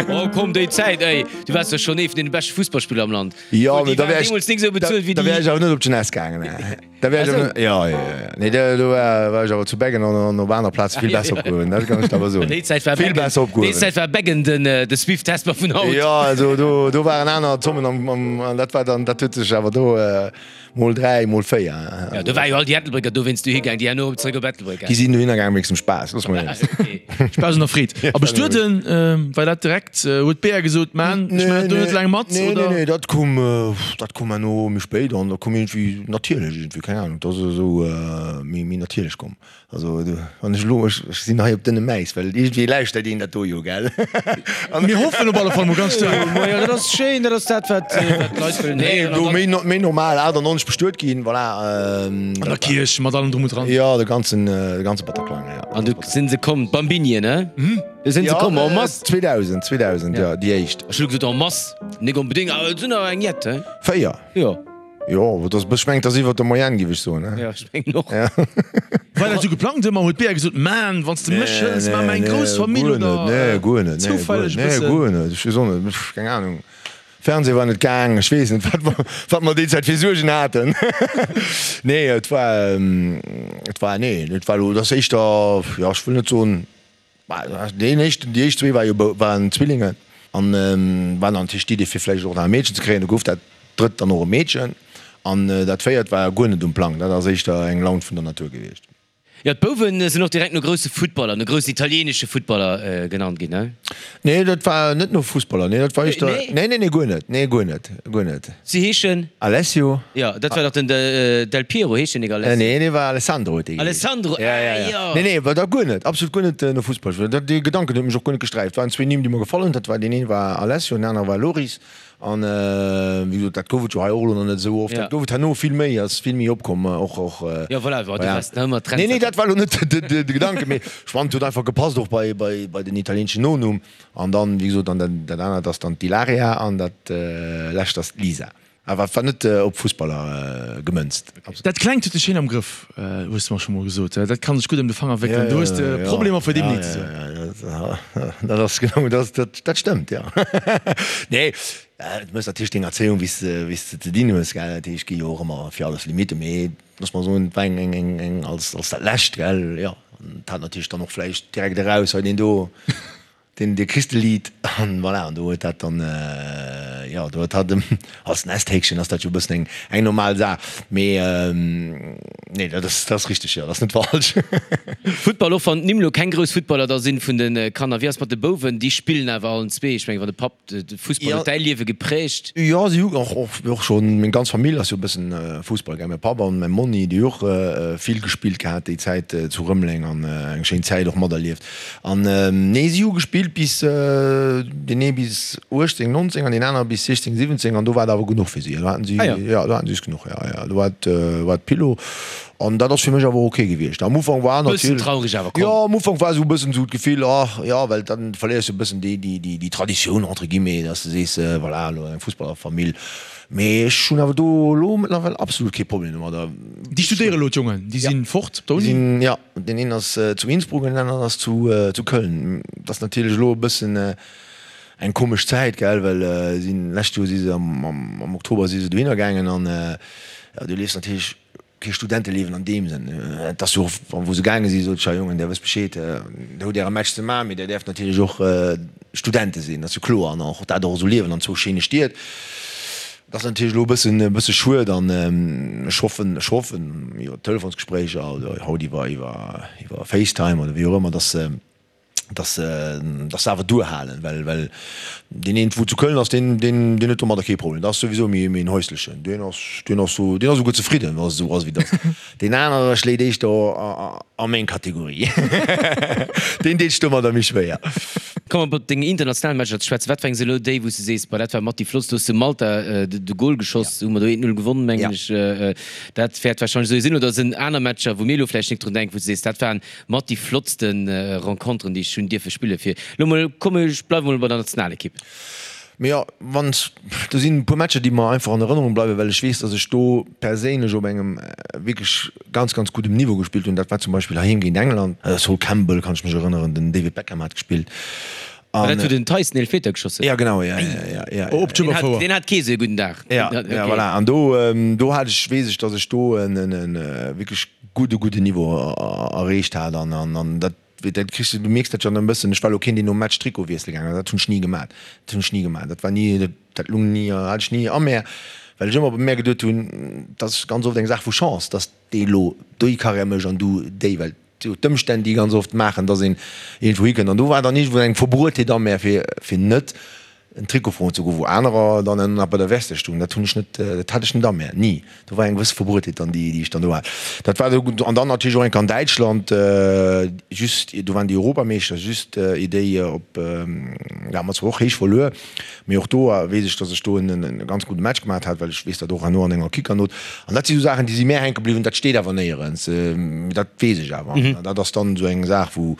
Oh komm, déi Zäit, ey, du waars jo schonn ee vun deene beschte Fussballspiller am Land. Jo, mee Déi da waren wär ech, deemools nik esou bezuelt wéi da wär déi. ech awer net op d'Jeunesse gaangen. Da wär ech awer net, jo, jo, jo, nee, do, do war, war ech awer zu Beggen an, an op aner Plaze vill besser opgehuewen, dat kann ech der awer soen. Déi Zäit war Vill Beggen, besser déi opgehuewen. Zäit war Beggen den, de Swift Hesper vun haut. Jo, also do, do waren aner Zommen am, am, an dat war dann, dat huet sech awer do mol 3, mol 4. Jo, do war jo all déi Ettelbrécker dowéinst dohi gaang, déi herno erëm zeréck op Ettelbréck Déi sinn dohinner gaang wéinst dem Spaass, looss mol eens. Spaass an der Freed. A bestueden, war dat direkt, huet d'Bea gesot, Man, ech maachen do net laang mat, Nee, oder? nee, nee, dat koum, dat koum herno méi spéit an dat koum iergendwéi natierlech iergendwéi, keng Ahnung, dat ass esou méi, méi natierlech komm. Also wann ech elo, ech sinn hei op dënnem Äis, well iergendwéi lauschtert een dat do jo, gell? Mir hoffen op alle Fall mol ganz staark. Majo, dat ass schéin, dat ass dat, wat d'Leit wëllen héieren. Nee, do méi, méi normal, 98 bestuet ginn, voilà. An der Kierch, mat allem drum und dran. Jo, de ganzen, de ganze Bataclan, jo. An du sinn se komm, d'Bambinien, ne? Du sinn se komm en masse. 2000, 2000, jo, déi éischt. Ech hu gesot en masse, nik onbedéngt, awer et sinn der eng jett, he? 4. Jo. Jo, dat ass, ech mengen, dat ass iwwer der Moyenne, géif ech soen. Jo, ech mengen och. War dat esou geplangt ëmmer? Huet d'Bea gesot, Man, wann s de mech hëls, maache mer eng grouss Famill, oder Nee, guer net. zoufälleg e Nee, bëssen? guer net. Ech weess och net, keng Anung. Fernseh war net gaang, ech weess net, wat mer, wat mer déi Zäit fir Suergen haten. Nee, et war, et war, nee, et war elo, et ass éischter, jo, ech wëll net soen, Deen éischten, déi éischt zwee war jo waren Zwillingen an war dann natierlech d'Idee fir vläicht och nach e Meedchen ze kréien. Du gouf dat drëtt dann och e Meedchen an dat véiert war guer net um Plang. Dat ass éischter eng Laun vun der Natur gewiescht. Jo, d'Bouwen sinn och direkt no grousse Futtballer, no groussen italieenesche Futtballer genannt ginn, ne? Nee, dat war net no Fussballer, nee, dat war éischter, nee, nee, nee, guer net, nee, guer net, guer net. Si heeschen? Alessio. Jo, dat war dach den Del Piero, heescht deen nik Alessio? Nee, dee war Alessandro huet dee geheescht. Alessandro, ah jo. Nee, nee, war dat guer net, absolut guer net no Fussball. Dat, dee Gedanken huet mech och guer net gesträift. Et waren zwee Nimm, déi mer gefall hunn, dat war, deen een war Alessio, den anere war Loris. An wéi gesot, dat gouf et jo hei och elo nach net esou oft. Dat gouf et herno vill méi, ass vill méi opkomm, och, och. Jo, voilà, du waars nach ëmmer Trendsetter. Nee, nee, dat war elo net de Gedanken, mee ech fannen, et huet einfach gepasst och bei, bei, bei den italieenschen Nonumm. An dann, wéi gesot, an dat anert ass dann d'Ilaria an dat lescht ass d'Lisa. Awer et war net op Fussballer gemënzt. Dat Klengt huet dech schéin am Grëff, hues de mer scho mol gesot. Dat kann sech gutt ëm de Fanger wéckelen. Do hues de Problemer fir deem Nee ze soen. Dat ass genau, dat stëmmt, jo. Nee, du méchs natierlech deng Erzéiung, wéi s de ze dinn hues, gell. Dat heescht, et gi jo och ëmmer fir alles Limitten, mee looss mer soen, et war eng, eng, eng als dat Lescht, gell, jo. An et hat natierlech dann och vläicht direkt eraus, hei deen do. Den de Christelied an voilà, an do huet dat dann, jo, do huet hatt als Nesthäkchen ass dat jo e bëssen eng eng normal Saach, mee nee, dat ass dat ass richteg, jo, dat ass net falsch. Futtball, och wann d'Nimm lo keng grouss Futtballer da sinn vun de Kanner, wéi ass mat de Bouwen? Déi spillen awer allen zwee, ech mengen, wann de Papp de Fussball huet däi Liewe geprägt. Jo, si hu och och schonn, meng ganz Famill ass jo e bëssen Fussball gaang, mäi Papp an mäi Monni, déi hu och vill gespillt gehat déi Zäit zu Rëmeleng an eng schéin Zäit och materlieft. An nee, si hu gespillt bis, deen ee bis 18, 19 an deen anere bis 16, 17 an do war et awer genuch fir si. Do haten si, jo, do haten si es genuch, jo, jo, do war et, war et Pillo. An dat ass fir mech awer ok gewiescht. Am Ufank war Bëssen natierlech, traureg awer, komm. Jo, am Ufank war esou e bëssen esou d'Gefill, ach jo, well dann verléiers du e bëssen déi, déi, déi, déi Traditioun entre guillemets, dass de sees, voilà, elo eng Fussballerfamill. Mee ech hunn awer do elo mëttlerweil absolut kee Problem domadder. Déi studéiere elo, d'Jongen, déi si fort op der Uni? Jo. Deen een ass zu Innsbruck an deen aneren ass zu Köln. Et ass natierlech elo e bëssen eng komesch Zäit, gell, well si lescht Joer si se am Oktober si se dohinner gaangen an jo, du liefs natierlech kee Studenteliewen an deem Sënn. Et ass jo och, wou se gaange sinn, sot ech, ja Jongen, där wësst Bescheed, der hutt äre Match ze maachen, mee der däerft natierlech och Studente sinn, dat ass jo kloer, an och dat och esou liewen an zwou schéine Stied. Dat ass natierlech elo e bëssen, e bësse schued an ech hoffen, ech hoffen iwwer Telefonsgespréicher oder haut iwwer, iwwer, iwwer Facetime oder wéi och ëmmer, dass se, dass se, dass se awer duerhalen, well, well deen een, wou zu Köln ass, deen, deen, deen huet domadder kee Problem. Dat ass souwisou méi, méi en häuslechen, deen ass, deen ass sou, deen ass esouguer zefridden, wa se esou ass wéi et ass. Deen anere schléit éischter. A meng Kategorie. Deen deet sech domadder méi schwéier. Komme mer op deng international Matcher ze schwätzen. Wat war elo déi, wou s de sees, Bah, dat war mat déi flottst? Do hues de Malta de Gol geschoss, hu mer do 1, 0 gewonnen, mengen ech. Dat wäert warscheinlech esou sinn. Oder sinn aner Matcher, wou mir elo vläicht nik drun denken, wou s de sees, dat waren mat déi flottste Renconteren, déi ech hunn dierfe spillen? Fir elo mol, komm, ech bleiwe mol bei der Nationalekipp. Mee jo, wann, do sinn e puer Matcher, déi mer einfach an Erënnerung bleiwen, well ech weess, datt ech do perséinlech op engem wierklech ganz, ganz guddem Niveau gespillt hunn. Dat war zum Beispill heiheem géint England. Sol Campbell kann ech mech erënneren, den David Beckham hat gespillt. War dat, wou den Tyson Eelfmeter geschoss huet? Ja, genau, ja, ja, ja, ja. Op d'Schueberfouer. Deen hat kee sou e gudden Dag. Ja, ja, voilà. An do, do hat ech, weess ech, datt ech do en, en wierklech gudde, gudde Niveau erreecht hat an, an dat, Dat kriss de, du mierks dat jo dann e bëssen. Ech war elo keen, deen nom Match Trikot wiessele gaangen ass. Dat hunn ech ni gemat. Dat hunn ech ni gemat. Dat war ni, dat, dat lung ni, hat ech ni a mär, well ech ëmmer bei mär geduet hunn, dat ass ganz oft eng Saach vu Chance, dass dee elo déi Karriär mécht an du déi, well jo d'Ëmstänn déi ganz oft maachen, dass een iergendwou hikënnt. An do war dann iergendwou eng Verbruetheet a mär, fir, fir net en Trikot froen ze goen, wou anerer dann nach bei der Veste stoungen. Dat hunn ech net, dat hat ech net a mär, ni. Do war eng gewësse Verbruetheet dann, déi, déi ech dann do hat. Dat war do, an dann natierlech och eng Kéier an Däitschland, just, do waren déi Europameeschter, just ier déi op, da hu mer zwar och héich verluer, mee och do weess ech, datt ech do en, en ganz gudde Match gemaat hat, well ech weess dat och herno an enger Kickernot. An dat si sou Saachen, déi si mär hänke bliwwen, dat steet awer néierens, mee dat weess ech awer. An dat ass dann esou eng Saach, wou,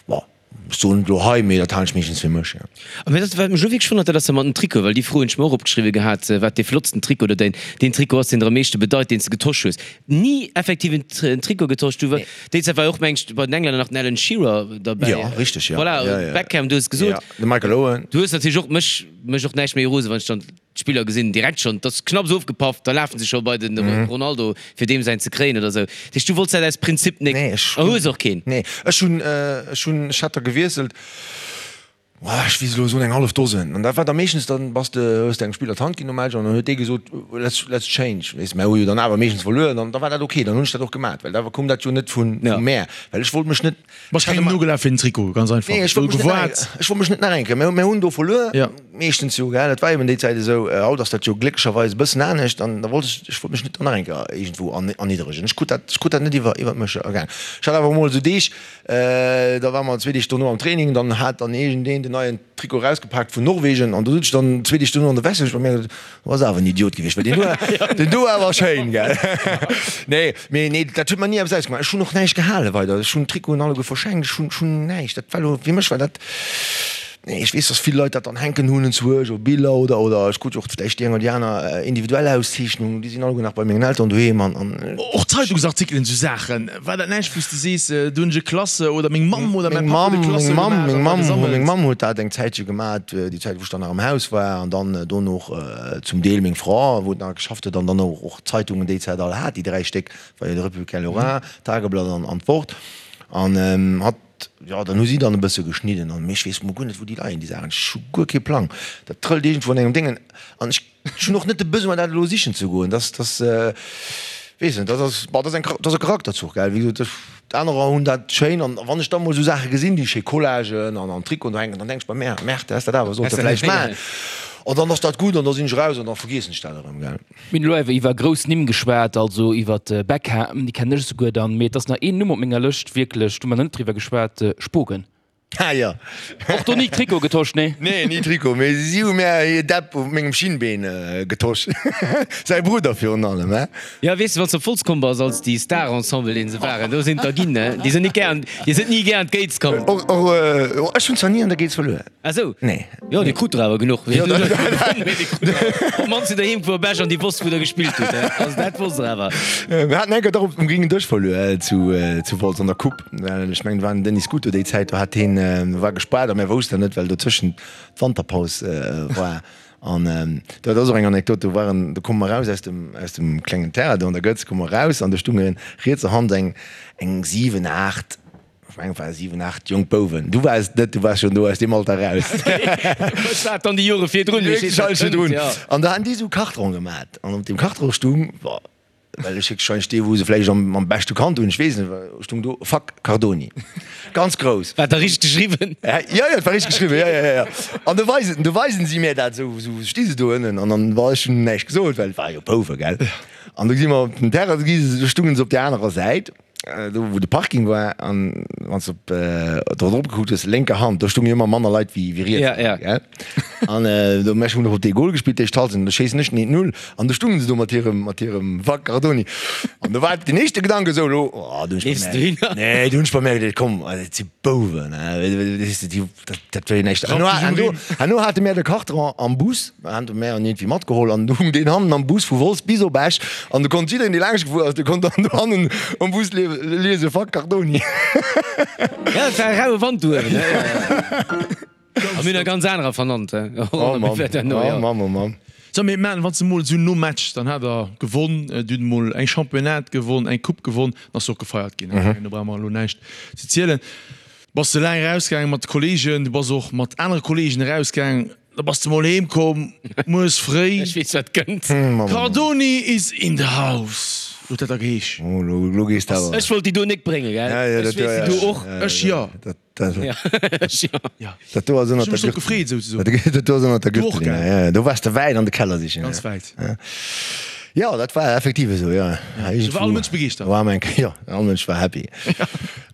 bon, Ech soen et elo hei, mee dat halen ech meeschtens fir mech, jo. A mee dat wat mech elo wierklech wonnert, dat ass dat mat den Trikoten, well déi Fro hunn ech mer och opgeschriwwe gehat, wat dee flottsten Trikot oder däin, deen Trikot ass, deen der am meeschte bedeit, deen s de getosch hues. Ni effektiv en en Trikot getosch. Du, déi Zäit war jo och, meng ech, bei den Englänner nach den Alan Shearer derbäi. Jo, richteg, jo. Voilà, Jo, jo. Beckham, du hues gesot. Jo, de Michael Owen. Du hues natierlech och mech, mech och näischt méi rose wann ech dann D'Spiller gesinn direkt schonn, et ass knapps ofgepaff, da lafen se scho bei de Ronaldo fir deem säin ze kréien oder sou. Dat heescht, du wollts dat aus Prinzip nik Nee, ech a hues och keen? Nee, ech hunn, ech hunn, ech hat der gewiesselt, ech weess elo soen eng hallef Dosen. An dat war da meeschtens, dann bass de, hues de engem Spiller d'Hand ginn nom Match an dann huet dee gesot, let's, let's change, weess de. Mä hu jo dann awer meeschtens verluer an da war dat ok, dann hunn ech dat och gemat, well da koum dat jo net vu mär, well ech wollt mech net, Bass kengem nogelaf fir den Trikot, ganz einfach. Nee, ech wollt mech net nach eng, ech wollt mech net nach eng Kéier. Mir hunn do verluer, meeschtens jo, gell, dat war eben déi Zäit esou. Haut ass dat jo glécklecherweis e bëssen anescht an da wollt ech, ech wollt mech net dann nach eng Kéier iergendwou erniddregen. Ech krut dat, ech krut dat net iwwer, iwwert mech ergaangen. Ech hat awer emol esou Deeg, da ware mer zwee Deeg dono am Training, dann hat dann iergendeen den neien Trikot erausgepaakt vun Norwegen an do sot ech dann zwee Deeg dono an der Veste, hu ech bei mir gesot, Du bass awer en Idiot gewiescht, well deen do, deen do war awer schéin, gell? Nee, mee nee, dat huet mer ni eppes ausgemaach. Ech hunn och näischt gehale weider. Ech hunn d'Trikoten alleguer verschenkt, ech hunn, ech hunn näischt. Dat war elo, fir mech war dat, nee, ech weess, dass vill Leit dat dann hänken hunn enzwuesch, op Biller oder, oder ech krut jo och vläicht déi eng oder déi aner individuell Auszeechnung, déi sinn alleguer nach bei mengen Elteren doheem an, an. Och Zeitungsartikelen, esou Saachen, war dat näischt, wou s de sees, do hunn ech e Klasse oder meng Mamm oder mäi Papp huet e Klasse gemaach an da gesammelt? Meng Mamm huet dat eng Zäitche gemaat, déi Zäit wou ech dann nach am Haus war an dann dono och zum Deel meng Fra wou nach geschafft huet an dann och d'Zeitungen déi Zäit all hat, déi 3 Stéck, war jo de Républicain Lorrain, d'Tageblatt an d'Wort an hatt, jo dann hu si dann e bësse geschnidden an mee ech weess mol guer net wou déi leien déi Saachen, ech hu guer kee Plang, dat trëllt iergendwou an engem Déngen an ech. Ech hunn och net de Besoin dat elo sichen ze goen. Dass, dass, weess net, dat ass, bon, dat ass eng, dat ass e Charakterzuch, gell. Wéi gesot, ech, anerer hunn dat schéin an wann ech da mol esou Saache gesinn, déi schéi Collagen an an Trikoten do hänken, dann denk ech bei mär, Merde, häss dat awer sollte vläicht maachen. An dann ass dat gutt an da sinn ech eraus an da vergiessen ech dat erëm, gell. Mir hunn elo awer iwwer grouss Nimm geschwat, also iwwer Beckham, déi kennen ech esouguer dann, mee et ass nach een Numm op menger Lëscht wierklech, do hu mer nach net driwwer geschwat, Spogen. Ah jo. Och do ni Trikot getosch, nee? Nee, ni Trikot, mee si hu mär hir Depp op mengem Schinnbeen getosch. Säi Brudder virun allem, he? Jo, weess de, wann s de op Wolz komm bass, als déi Star-Ensemble, deen se waren, do sinn der ginn, ne? Déi sinn nik gär, déi sinn ni gär an d'Gates komm. Och, och, ech hunn zwar ni an der Gates verluer. Ah sou? Nee. Jo, dir krut der awer genuch. Jo, dat. Op d'mannst hutt der heem gefuer op Esch an déi wosst, wou der gespillt hutt, he? Also dat wosst der awer. Mir haten eng Kéier dach um gréngen Dësch verluer zu, zu Wolz an der Coupe. Well ech mengen, et war den Denis Scuto déi Zäit, do hat heen, war gespaart a mär woussten dat net, well dotëschent d'Wanterpaus war. An dat ass och eng Anekdot, do waren, do komme mer raus aus dem, aus dem klengen Terrain do an der Gëtz, komme mer raus an do stunge rietser Hand eng, eng 7, 8, ech mengen et ware 7, 8 jonk Bouwen. Du waars et net, du waars schonn do aus deem Alter raus. Ech war et dann déi Jore virdrun, mee ech weess, wat kënnt, jo. An da haten déi esou Kartronen gemat an op deem Kartron stung, Well ech héchstwahrscheinlech dee wou se vläicht am am beschte kannt hunn, ech weess net, stung do Fuck Cardoni. Ganz grouss. War da richteg geschriwwen? Jo, jo, et war richteg geschriwwen, jo, jo, jo, jo. An du weisen, du weisen si mir dat esou, esou sti se do ënnen an dann war ech hunn näischt gesot, well et war jo Bouwe, gell. An du si mer op den Terrain gi, du stungen se op där anerer Säit. do wou de Parking war an wann s de op do drop gekuckt hues, lénker Hand, do stoungen jo ëmmer manner Leit wéi wéi riets. Ja, ja. Gell? An do mech hunn och op dee Goal gespillt, d'éischt Halschent, an do schéissen ech den 1-0 an do stungen se do mat hirem mat hirem Fuck Cardoni. An do war den éischte Gedanke esou, elo, oh, do hunn ech Leefs du bemerkt, hinner? nee, do hunn ech bemerkt, ey, komm, dat si Bouwen, weess de, déi, dat, dat wär jo näischt. Herno, herno, herno hate mär de Carton am Bus, hate mär en iergendwéi matgeholl an du hung deen hannen am Bus vu Wolz bis op Esch an du konnt jiddereen, dee laanscht gefuer ass, dee konnt dann do hannen am Bus liese Fuck Cardoni. Ja, et war e raue Wand do uewen, ne? A mir hunn e ganz anerer vernannt. Oh Mann, oh Mann, oh Mann. So, mee man, wann s de mol esou nom Match, dann hat der gewonn, dir hutt mol eng Championnat gewonn, eng Coupe gewonn, dann ass jo och gefeiert ginn, do brauche mer elo näischt ze zielen. Bass de laang erausgaangen mat de Kollegen, du bass och mat anere Kollegen erausgaangen, da bass de mol heem komm, mueres fréi. Ech weess wat kënnt. Cardoni is in the house, huet dat da geheesch. Oh, lo gees de awer. Ech wollt déi do nik bréngen, gell? Ech weess déi do och. Ech jo. Ja. Dat do ass ënnert der Gürtel. Dat do ass ënnert der Gürtel. Ja, ja, do waars de wäit an de Keller sichen. Ganz wäit. Ja, dat war effektiv esou, ja. Do war all Mënsch begeeschtert. War eng, ja, all Mënsch war happy.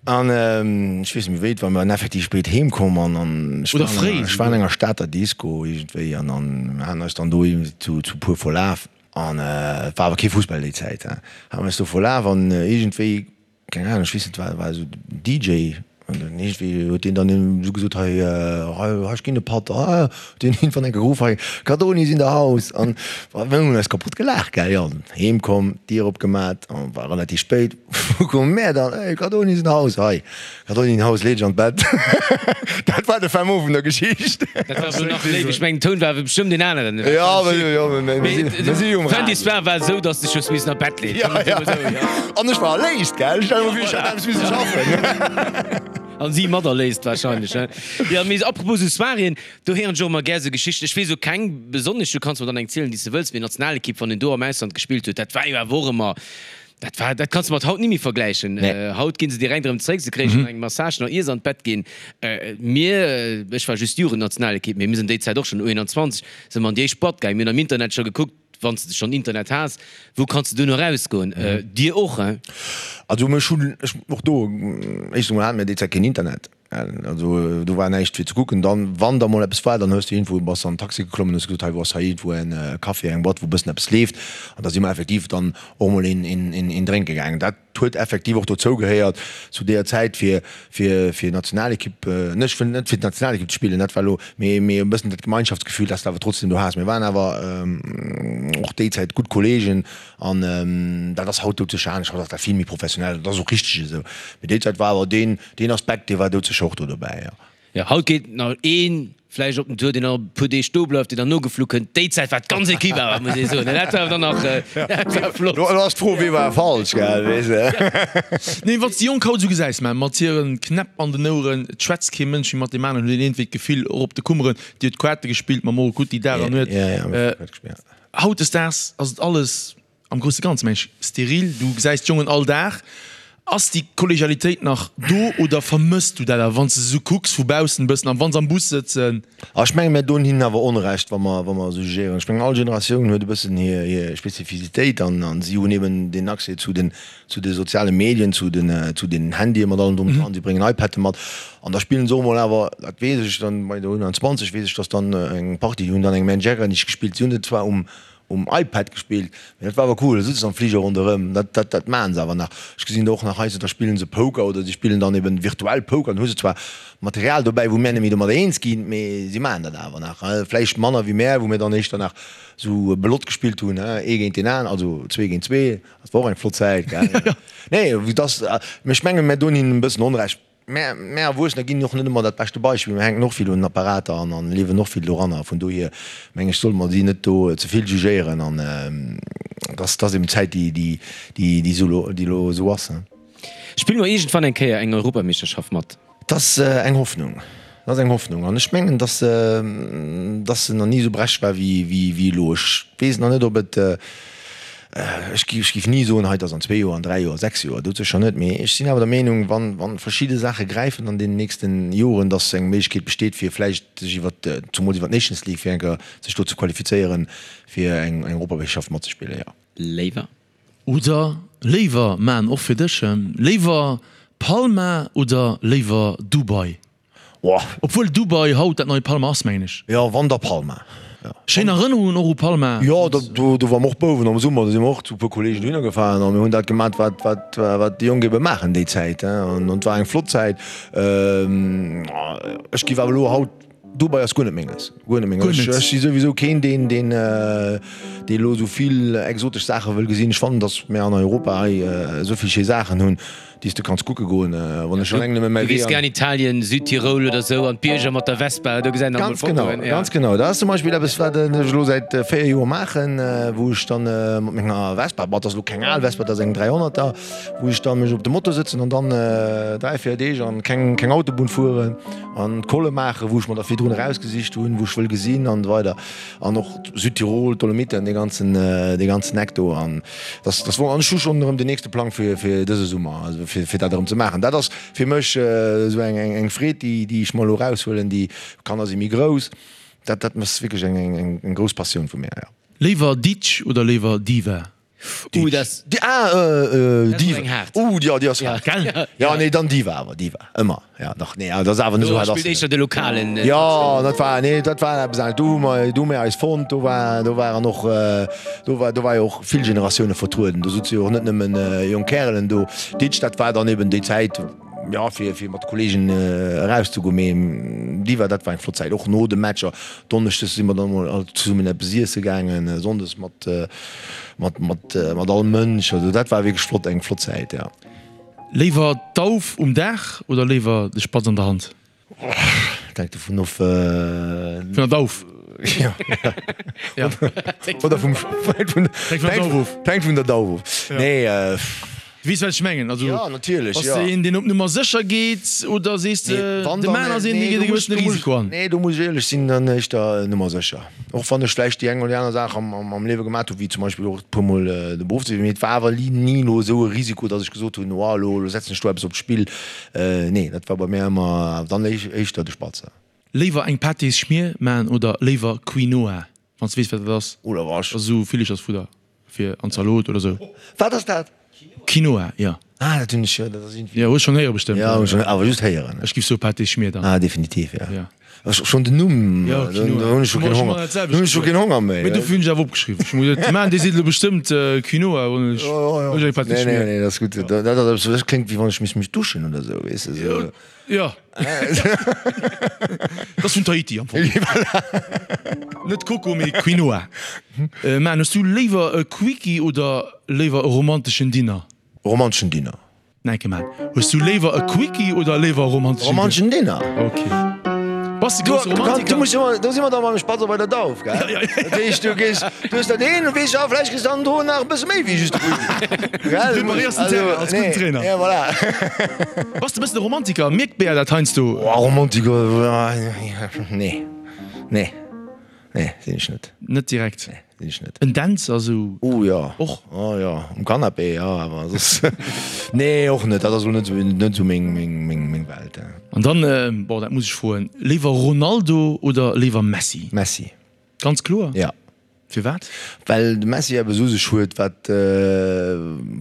An ech weess net méi wéi et war, mir waren effektiv spéit heem komm an an ech war an enger, ech war an enger Stater Disco iergendwéi an an mir haten eis dann do zu zu puer verlaf an et war awer kee Fussball déi Zäit, he, hate mir eis do verlaf an iergendwéi Keng Ahnung, ech weess net, war war esou den DJ an dann iergendwéi huet deen dann esou gesot, hei hei ech ginn e Patt, ah huet deen iergendwann eng geruff, hei Cardoni is in the house an mir hunn eis kapott gelaacht, gell, jo. Heem komm, d'Dier opgemat an war relativ spéit, wou komme mär dann, hey Cardoni is in the house, hei Cardoni in the house, lee dech an d'Bett. Dat war de Fin mot vun der Geschicht. Dat war awer nach léif, ech mengen den Toun war awer bestëmmt een aneren. Jo, jo, mir si jo um Radio. Fin d'histoire war esou, dass de dech hues missen an d'Bett leeën. Ja, ja. An ech war erléist, gell? Stell mer vir, ech hätt eppes misse schaffen. An si mat erléist wahrscheinlech, ne? Jo, mee apropos esou Soiréen, do héieren ech och ëmmer gär esou Geschichten. Ech weess elo keng besonnesch, du kanns mer dann eng zielen, déi s de wëlls, mee d'Nationalekipp, wann een do am Ausland gespillt huet, dat war jo awer och ëmmer, dat war, dat kanns de mat haut ni méi vergläichen. Haut gi se direkt erëm zréck, se kréie schonn eng Massage nach ier se an d'Bett ginn. Mir, ech war just Jugendnationalekipp, mee mir sinn déi Zäit och schonn U21, si mer an déi éischt Boîte gaangen, mir hunn am Internet scho gekuckt, Wann s de schonn Internet has, wou kanns de duerno erausgoen? Dir och, hein? Also mech hunn ech och do, éischtens emol hate mir déi Zäit keen Internet, also do war näischt fir ze kucken. Dann, wann da mol eppes war, dann hues du iergendwou, bass an den Taxi geklommen, hues gesot, hei wou ass hei iergendwou en Café, eng Boîte, wou e bëssen eppes leeft. An da si mer effektiv dann och mol een, een, een drénke gaangen. Dat huet effektiv och dozou gehéiert zu deeër Zäit fir fir fir Nationalekipp, net ech wëll net fir d'Nationalekipp ze spillen, dat war elo, mee mee e bëssen dat Gemeinschaftsgefühl, dat s de awer trotzdem do has. Mir waren awer och déi Zäit gutt Kollegen an dat ass haut doudsécher anescht, haut ass dat vill méi professionell, dat ass och richteg esou, mee déi Zäit war awer deen deen Aspekt, dee war doudsécher och do dobäi, jo. Jo, haut geet nach een vläicht op den Tour, deen nach e puer Deeg do bleift, deen dann nogeflu kënnt. Déi Zäit war d'ganz Equipe awer, muss ee soen. Dat war dann nach, dat war flott. Lo ass d'Fro, wee war falsch, gell, weess de. Nee, wann s de déi Jonk haut esou gesäis, mä mat hiren Knäpp an den Oueren, et schwätzt kee Mënsch méi mat deem aneren, huet een iergendwéi d'Gefill, och op de Kummeren, déi huet Quarte gespillt mam Morocutti Dag an Nuet. Hautdesdaags ass et alles Am grousse Ganze mengen ech steril, du gesäis d'Jongen all Dag. Ass déi Kollegialitéit nach do oder vermëss du dat awer, wann s de se esou kucks vu baussen e bëssen an wa se am Bus sëtzen? Ah, ech mengen, mir doen hinnen awer Onrecht, wa mer, wa mer esou jugéieren. Ech mengen, all Generatioun huet e bëssen hir, hir Spezifisitéit an, an si hunn eben deen Accès zu den, zu de soziale Medien, zu den, zu den Handye mat allem drum und dran. Si bréngen iPadde mat an da spillen se och emol awer, dat weess ech dann, bei der U21 weess ech, dass dann eng Partie, déi hunn dann eng Man Jägernig gespillt, si hunn et zwar um, um iPad gespillt, mee dat war awer cool, da sëtze se am Fliger ronderëm, dat dat dat maachen se awer nach. Ech gesinn der och nach heiansdo, da spillen se Poker oder si spillen dann eben virtuell Poker, dann hu se zwar Material dobäi, wou mär net méi domadder eens ginn, mee si maachen dat awer nach, vläicht manner wéi mär, wou mir dann éischter nach sou Belotte gespillt hunn, ee géint deen aner, also zwee géint zwee, dat war och eng flott Zäit, gell. Nee, vu dass, mee ech mengen, mär doen hinnen e bëssen Onrecht. Mär, mär Erwuessener ginn och net ëmmer dat beschte Beispill. Mir hänken och vill un den Apparater an an liewen och vill doranner. Vun dohier meng ech, solle mer si net do ze vill jugéieren an dass, dass eben d'Zäit déi, déi, déi, déi esou lo, déi lo esou ass. Spille mer iergendwann eng Kéier eng Europameeschterschaft mat? Dat ass eng Hoffnung. Dat ass eng Hoffnung an ech mengen, dass, dass se nach ni esou berechtigt war wéi, wéi, wéi elo. Ech weess nach net, ob et, Ech géif ni soen, hei, et ass an zwee Joer, an dräi Joer, sechs Joer, dat sécher net. Mee ech sinn awer der Meenung, wann, wa verschidde Saache gräifen an deenen nächsten Joren, datt eng Méiglechkeet besteet, fir vläicht sech iwwer, zumools iwwer d'Nations League, fir eng Kéier sech do ze qualifizéieren, fir eng Europameeschterschaft matzespillen, jo. Léiwer. Oder léiwer, maan och fir dech, léiwer Palma oder léiwer Dubai? Obwuel Dubai haut dat nei Palma ass, mengen ech. Jo, wann da Palma. Schéin Erënnerungen och u Palma. Jo, do ware mer och Bouwen am Summer, do si mer och zu e puer Kollegen dohinner gefahren a mir hunn dat gemat, wat, wat, wat déi Jonk ebe maachen déi Zäit. An et war eng flott Zäit. Ech giff awer elo haut, Dubai ass guer net menges, guer net menges. Ech, ech si souwisou keen, deen, deen, dee elo esou vill exotesch Saache wëll gesinn. Ech fannen, datt mir an Europa hei esou vill schéi Saachen hunn. Déi s de kanns kucke goen, wann ech alleng nëmme mäi Wee. Du gees gär an Italien, Südtirol oder sou, an d'Bierger mat der Vespa, do gesäit een alt mol Fotoen. Ganz genau, ganz genau. Dat ass zum Beispill eppes, wat ech elo säit 4 Joer maachen, wou ech dann mat menger Vespa, bon, dat ass elo keng al Vespa, dat ass eng 300er, wou ech dann mech op de Moto sëtzen an dann 3, 4 Deeg an keng, keng Autobunn fueren an d'Colle maachen, wou ech mer da virdrun erausgesicht hunn, wou ech wëll gesinn an esou weider. An och Südtirol, d'Dolomiten, dee ganzen, dee ganzen Eck do. An dass, dass wor, an ech hu schonn erëm den nächste Plang fir, fir dëse Summer, also fir, fir dat erëm ze maachen. Dat ass fir mech esou eng, eng, eng Freed, déi, déi ech mer elo eraushuelen. Déi Kanner si méi grouss. Dat, dat ass wierklech eng, eng, eng, eng grouss Passioun vu mir, jo. Léiwer Ditsch oder léiwer Diva? Uh, das, Di, ah, äh, äh, Diva. Eng haart. Uh, ja, déi ass haart. Gell? Ja, nee, dann Diva awer, Diva. Ëmmer. Ja, dach, nee, dat ass awer net esou haart. Spillt éischter de lokalen. Äh, ja, dat war, nee, dat war eppes anescht. Do hu mer, do hu mir eis fonnt, do war, do waren och, äh, do war, do war jo och vill Generatioune vertrueden. Do souze jo och net nëmmen äh, jonk Kärelen do. Ditsch, dat war dann eben déi Zäit, ja, fir, fir mat de Kollegen äh, erauszegoen. Mee Diva, dat war eng flott Zäit. Och no de Matcher, Donneschdes si mer dann emol all zesummen eppes iesse gaangen, Sonndes mat, mat, mat, mat all Mënsch. Also dat war wierklech flott, eng flott Zäit, ja. Léiwer d'Dauf um Daach oder léiwer de Spatz an der Hand? Dat hänkt dovun of. Vun der Dauf? Ja. Oder vum, hänkt vun der Dauf of. Nee. Du weess wat ech mengen, also ja, natierlech, bass de een deen op Nummer sécher geet oder sees de de Man ass een dee geet e gewëssene Risiko an? Nee, do muss ech éierlech sinn, dann éischter Nummer sécher. Och wann ech vläicht déi eng oder déi aner Saach am Liewe gemat hu wéi zum Beispill och e puer mol de Beruff ze wiesselen, mee et war awer ni elo esou e Risiko, datt ech gesot hunn, oh elo elo setzen ech do eppes op d'Spill. Nee, dat war bei mir ëmmer dann éischter de Spatz. Léiwer eng Pâtés-Schmier man oder léiwer Quinoa? Wann s de weess wat dat ass. Oder was? Ass esou Villechersfudder fir an Zalot oder sou. Wat ass dat? Quinoa, jo. Ah, dat hunn ech jo, dat ass iergendwéi. Jo, hues schonn héiere bestëmmt. Jo, hunn ech schonn, awer just héieren. Ech giff soe Pâté Schmier dann. Ah, definitiv, jo. Jo. Ech, schonn den Numm, Jo, do hunn ech scho keen Honger, do hunn ech scho keen Honger méi. Mee dofir hunn ech awer opgeschriwwen. Ech hu gesot, de Maen, dee seet elo bestëmmt Quinoa, hunn ech, hunn ech eng Pâté Schmier. Nee, nee, nee, dat ass gutt. Dat ass eppes, dat kléngt wéi wann ech misst mech duschen oder sou, weess de, sou. Jo. Dat ass vun Tahiti am Fong. Net Coco, mee Quinoa. Man, hues du léiwer e Quickie oder léiwer e romanteschen Dinner? Romanteschen Dinner. Nike man, hues du léiwer e Quickie oder léiwer e romanteschen Dinner? Romanteschen Dinner. Ok. Bass de grousse Romantiker? Du muss ëmmer, do si mer da mam Spatz bei der Dauf, gell? Ja, ja. Dat heescht, du gees, du hues dat een, du weess, ja, vläicht kriss dann do nach e bësse méi wéi just de Quickie. Gell? Du preparéiers den Terrain als gudden Trainer. Ja, voilà. Bass de e bëssen e Romantiker? Mierkt d'Bea dat heiansdo? Oh, Romantiker, nee, nee, nee, sinn ech net. Net direkt? Nee, sinn ech net. En Dänzer sou? Oh jo. Och? Oh jo, um Canapé, jo, awer soss, nee, och net. Dat ass elo net sou, net sou meng, meng, meng, meng Welt. An dann, bon, dat muss ech froen, léiwer Ronaldo oder léiwer Messi? Messi. Ganz kloer? Ja. Firwat? Well de Messi eppes u sech huet, wat,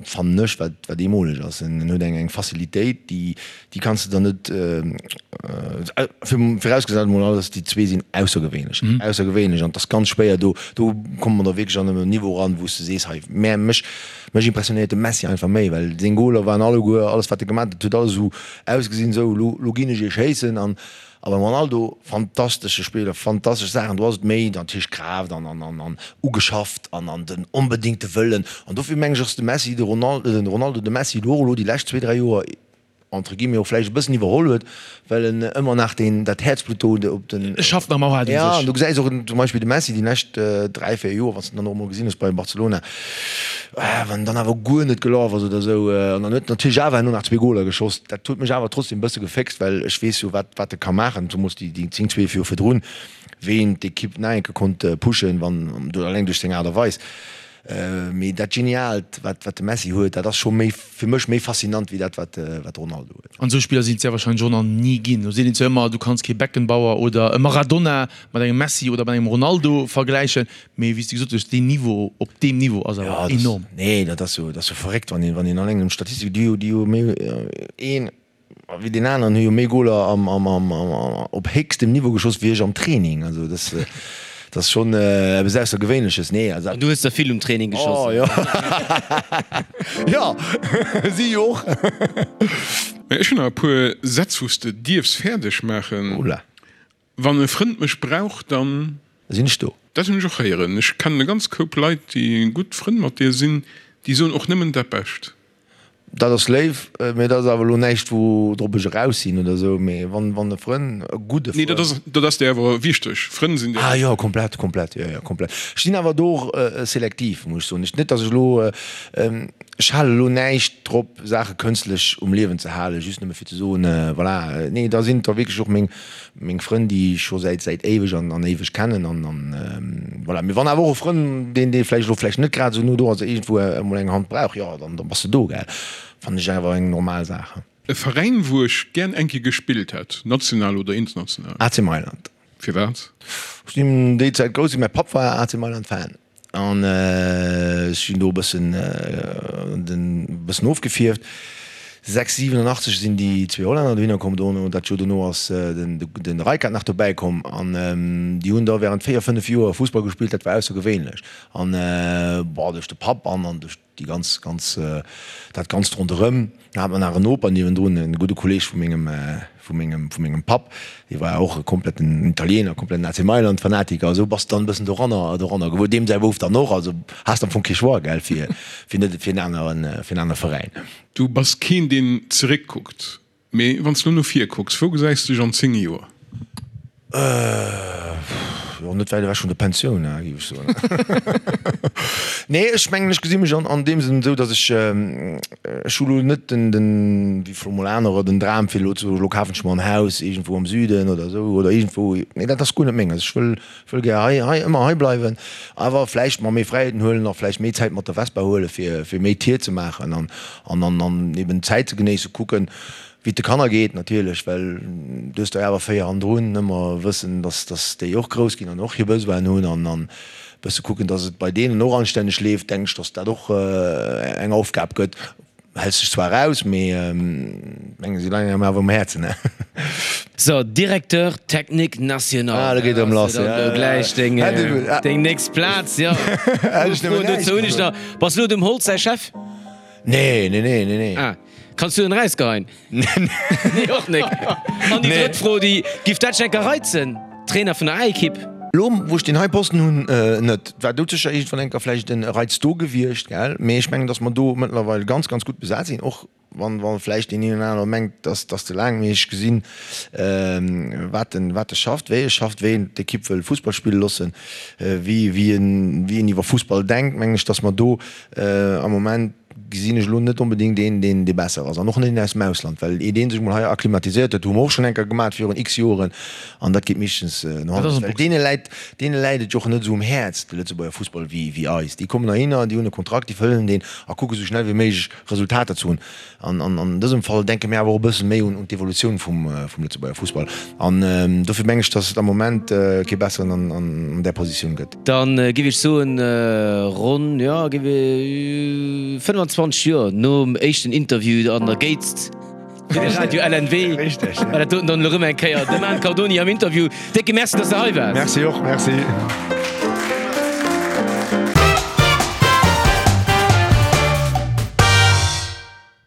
fannen ech, wat, wat eemoleg ass. En huet eng, eng Facilitéit, déi, déi kanns de der net, virausgesat emol alles, déi zwee sinn aussergewéinlech, aussergewéinlech an et ass ganz schwéier do, do komme mer da wierklech an e Niveau eran, wou s de sees, hei, mä mech, mech impressionéiert de Messi einfach méi, well seng Goler waren alleguer, alles wat e gemaach huet, huet alles esou ausgesinn, esou, elo, elo ginn ech iech schéissen an A beim Ronaldo, fantastesche Spiller, fantastesch Saachen, do ass et méi natierlech Kraaft an an an ugeschafft an an den onbedéngte Wëllen. An dofir mengen ech, ass de Messi de Ronaldo, den Ronaldo de Messi elo och elo déi lescht zwee, dräi Joer entre guillemets och vläicht e bëssen iwwerholl huet, well en ëmmer nach deen dat Häerzblutt do op den. E schafft nach ëmmer haart un sech. Ja, an du gesäis och zum Beispill de Messi déi lescht dräi, véier Joer, wann s de en dann och emol gesinn hues bei Barcelona, Wann dann awer guer net gelaf ass oder esou, an dann huet en natierlech awer herno nach zwee Goler geschoss, dat huet mech awer trotzdem e bësse geféxt, well ech weess jo wat wat e ka maachen, zemools déi déi 10, 12 Joer virdrun, wéi en d'Ekipp nach eng Kéier konnt pushen, wann, alleng duerch seng Aart a Weis. Mee dat Geniaalt, wat wat de Messi huet, dat ass scho méi, fir mech méi faszinant wéi dat, wat wat de Ronaldo huet. An esou Spiller sinn et sehr wahrscheinlech och nach ni ginn. Do seet een zwar ëmmer, du kanns kee Beckenbauer oder e Maradona mat engem Messi oder mat engem Ronaldo vergläichen, mee wéi s de gesot hues, deen Niveau op deem Niveau ass awer enorm. Nee, dat ass jo, dat ass jo verréckt, wann een, wann een alleng un d'Statistik, déi jo, déi jo méi een wéi deen aneren hu jo méi Goler am, am, am, op héchstem Niveau geschoss wéi ech am Training. Also dat, dat ass schonn eppes Aussergewéinleches. Nee, also. An du hues der vill um Training geschoss. Oh jo. Jo, si jo och. Mä ech hunn nach e puer Sätz, wou s de dierfs fäerdeg maachen. Oula. Wann e Frënd mech brauch, dann. Sinn ech do. Dat hunn ech och héieren. Ech kennen e ganz Koup Leit, déi gutt Frënn mat dir sinn, déi soen och nëmmen dat Bescht. Dat ass léif, mee dat ass awer elo näischt, woudrop ech eraus sinn oder esou. Mee wann, wann e Frënn, e gudde Nee, dat Frënn. ass, dat ass dir awer wichteg. Frënn sinn dir. Ah jo, komplett, komplett, jo, jo, komplett. Ech sinn awer do och selektiv, muss ech soen. Ech, net datt ech elo, ech hale elo näischt drop, Saache kënstlech um Liewen ze halen, just nëmme fir ze soen, voilà. Nee, da sinn et da wierklech och meng, Meng Frënn, déi ech scho säit säit éiweg an an éiweg kennen an an voilà. Mee wann awer och e Frënn, deen dee vläicht elo vläicht net grad esou no do ass, iergendwou emol eng Hand brauch, jo, dann da bass de do, gell. Fannen ech awer eng normal Saach. E Veräin, wou ech gären eng Kéier gespillt hätt, national oder international? AC Mailand. Firwat? Ech sinn déi Zäit grouss ginn, mäi Papp war AC Mailand Fan. An ech sinn do e bëssen, den, bëssen ofgefierft. 6, 87 sinn déi zwee Hollänner dohinner komm. Dono, dat Joer dono ass den, den Rijkaard nach dobäi komm. An déi hunn da während 4, 5 Joer Fussball gespillt, dat war aussergewéinlech. An, bon, duerch de Papp an an duerch déi ganz, ganz, dat Ganzt ronderëm. Da hat mer nach en Noper niewendrun, e gudde Kolleeg vu mengem, vu mengem, vu mengem Papp, dee war och e kompletten Italiener, kompletten AC Mailand Fanatiker. Esou bass de dann e bëssen doranner, doranner gewuer. Deem säi Bouf dann och. Also has de am Fong kee Choix, gell, fir, fir net fir en aneren, fir en anere Veräin. Du bass keen, deen zeréckkuckt. Mee wann s de lo no vir kucks, wou gesäis de dech an 10 Joer? Jo, net wäit ewech vun der Pensioun, géif ech soen. Nee, ech mengen, ech gesi mech an deem Sënn esou, datt ech, ech hu lo net den, den, wéi vläicht mol anerer, den Dram fir elo ze soen, elo kafen ech mer en Haus iergendwou am Süden oder esou oder iergendwou. Nee, dat ass guer net menges. Ech wëll, wëll gär hei, hei, ëmmer hei bleiwen, awer vläicht mer méi Fräiheeten huelen a vläicht méi Zäit mat der Vespa huele fir, fir méi Tier ze maachen an, an, an, an eben d'Zäit ze genéissen, kucken, Wéi et de Kanner geet natierlech, well du hues der awer 4 hannendrun, ëmmer wëssen, dass dass déi och grouss ginn an och hir Besoinen hunn an an bësse kucken, dass et bei deenen och anstänneg leeft, denken ech, dass dat och eng Aufgab gëtt. Häls dech zwar eraus, mee mengen si leien engem awer um Häerzen, ne? So, Directeur technique national. Ah, do geet erëm lass, ja. Do gläich deng deng nächst Plaz, jo. Hätt ech nëmmen näischt Dozou hunn ech nach, Bass lo dem Holtz säi Chef? Nee, nee, nee, nee, nee. Ah. Kanns du en erausgeheien? Nee, och nek. An déi drëtt Fro, déi giff dat dech enker reizen, Trainer vun der A-Ekipp? Lo wou ech deen hei Posten hunn, net. War doudsécher iergendwann enker vläicht en Reiz do gewiescht, gell? Mee ech mengen, datt mer do mëttlerweil ganz, ganz gutt besat sinn, och wann, wa vläicht deen een oder anere mengt, datt ass ze laang. Mee ech gesinn, wat en, wat e schafft, wéi e schafft, wéi en d'Ekipp wëll Fussball spille loossen, wéi, wéi en, wéi en iwwer Fussball denkt, mengen ech, datt mer do am Moment, gesinn ech elo net onbedéngt een, deen dee besser ass. An och net een aus dem Ausland, well iert ee sech mol hei akklimatiséiert huet, hu mer och schonn eng Kéier gemat virun x Joren, an dat geet meeschtens no hannen lass, well deene läit, deene läit et jo och net esou um Häerz, de Lëtzebuerger Fussball, wéi wéi eis. Déi kommen heihinner, déi hunn e Kontrakt, déi fëllen deen a kucke sou schnell wéi méiglech Resultater ze hunn. An an dësem Fall denke mir awer och e bësse méi un d'Evolutioun vum vum Lëtzebuerger Fussball. An dofir meng ech, datt et am Moment kee besseren an an där Positioun gëtt. Dann giff ech soen, ronn, jo, giff ech 25 Joer nom éischten Interview an der Géizt fir de Radio LNW, war dat doten dann elo rëm eng Kéier de Man Cardoni am Interview. Décke Merci, dass de hei waars. Merci och, merci.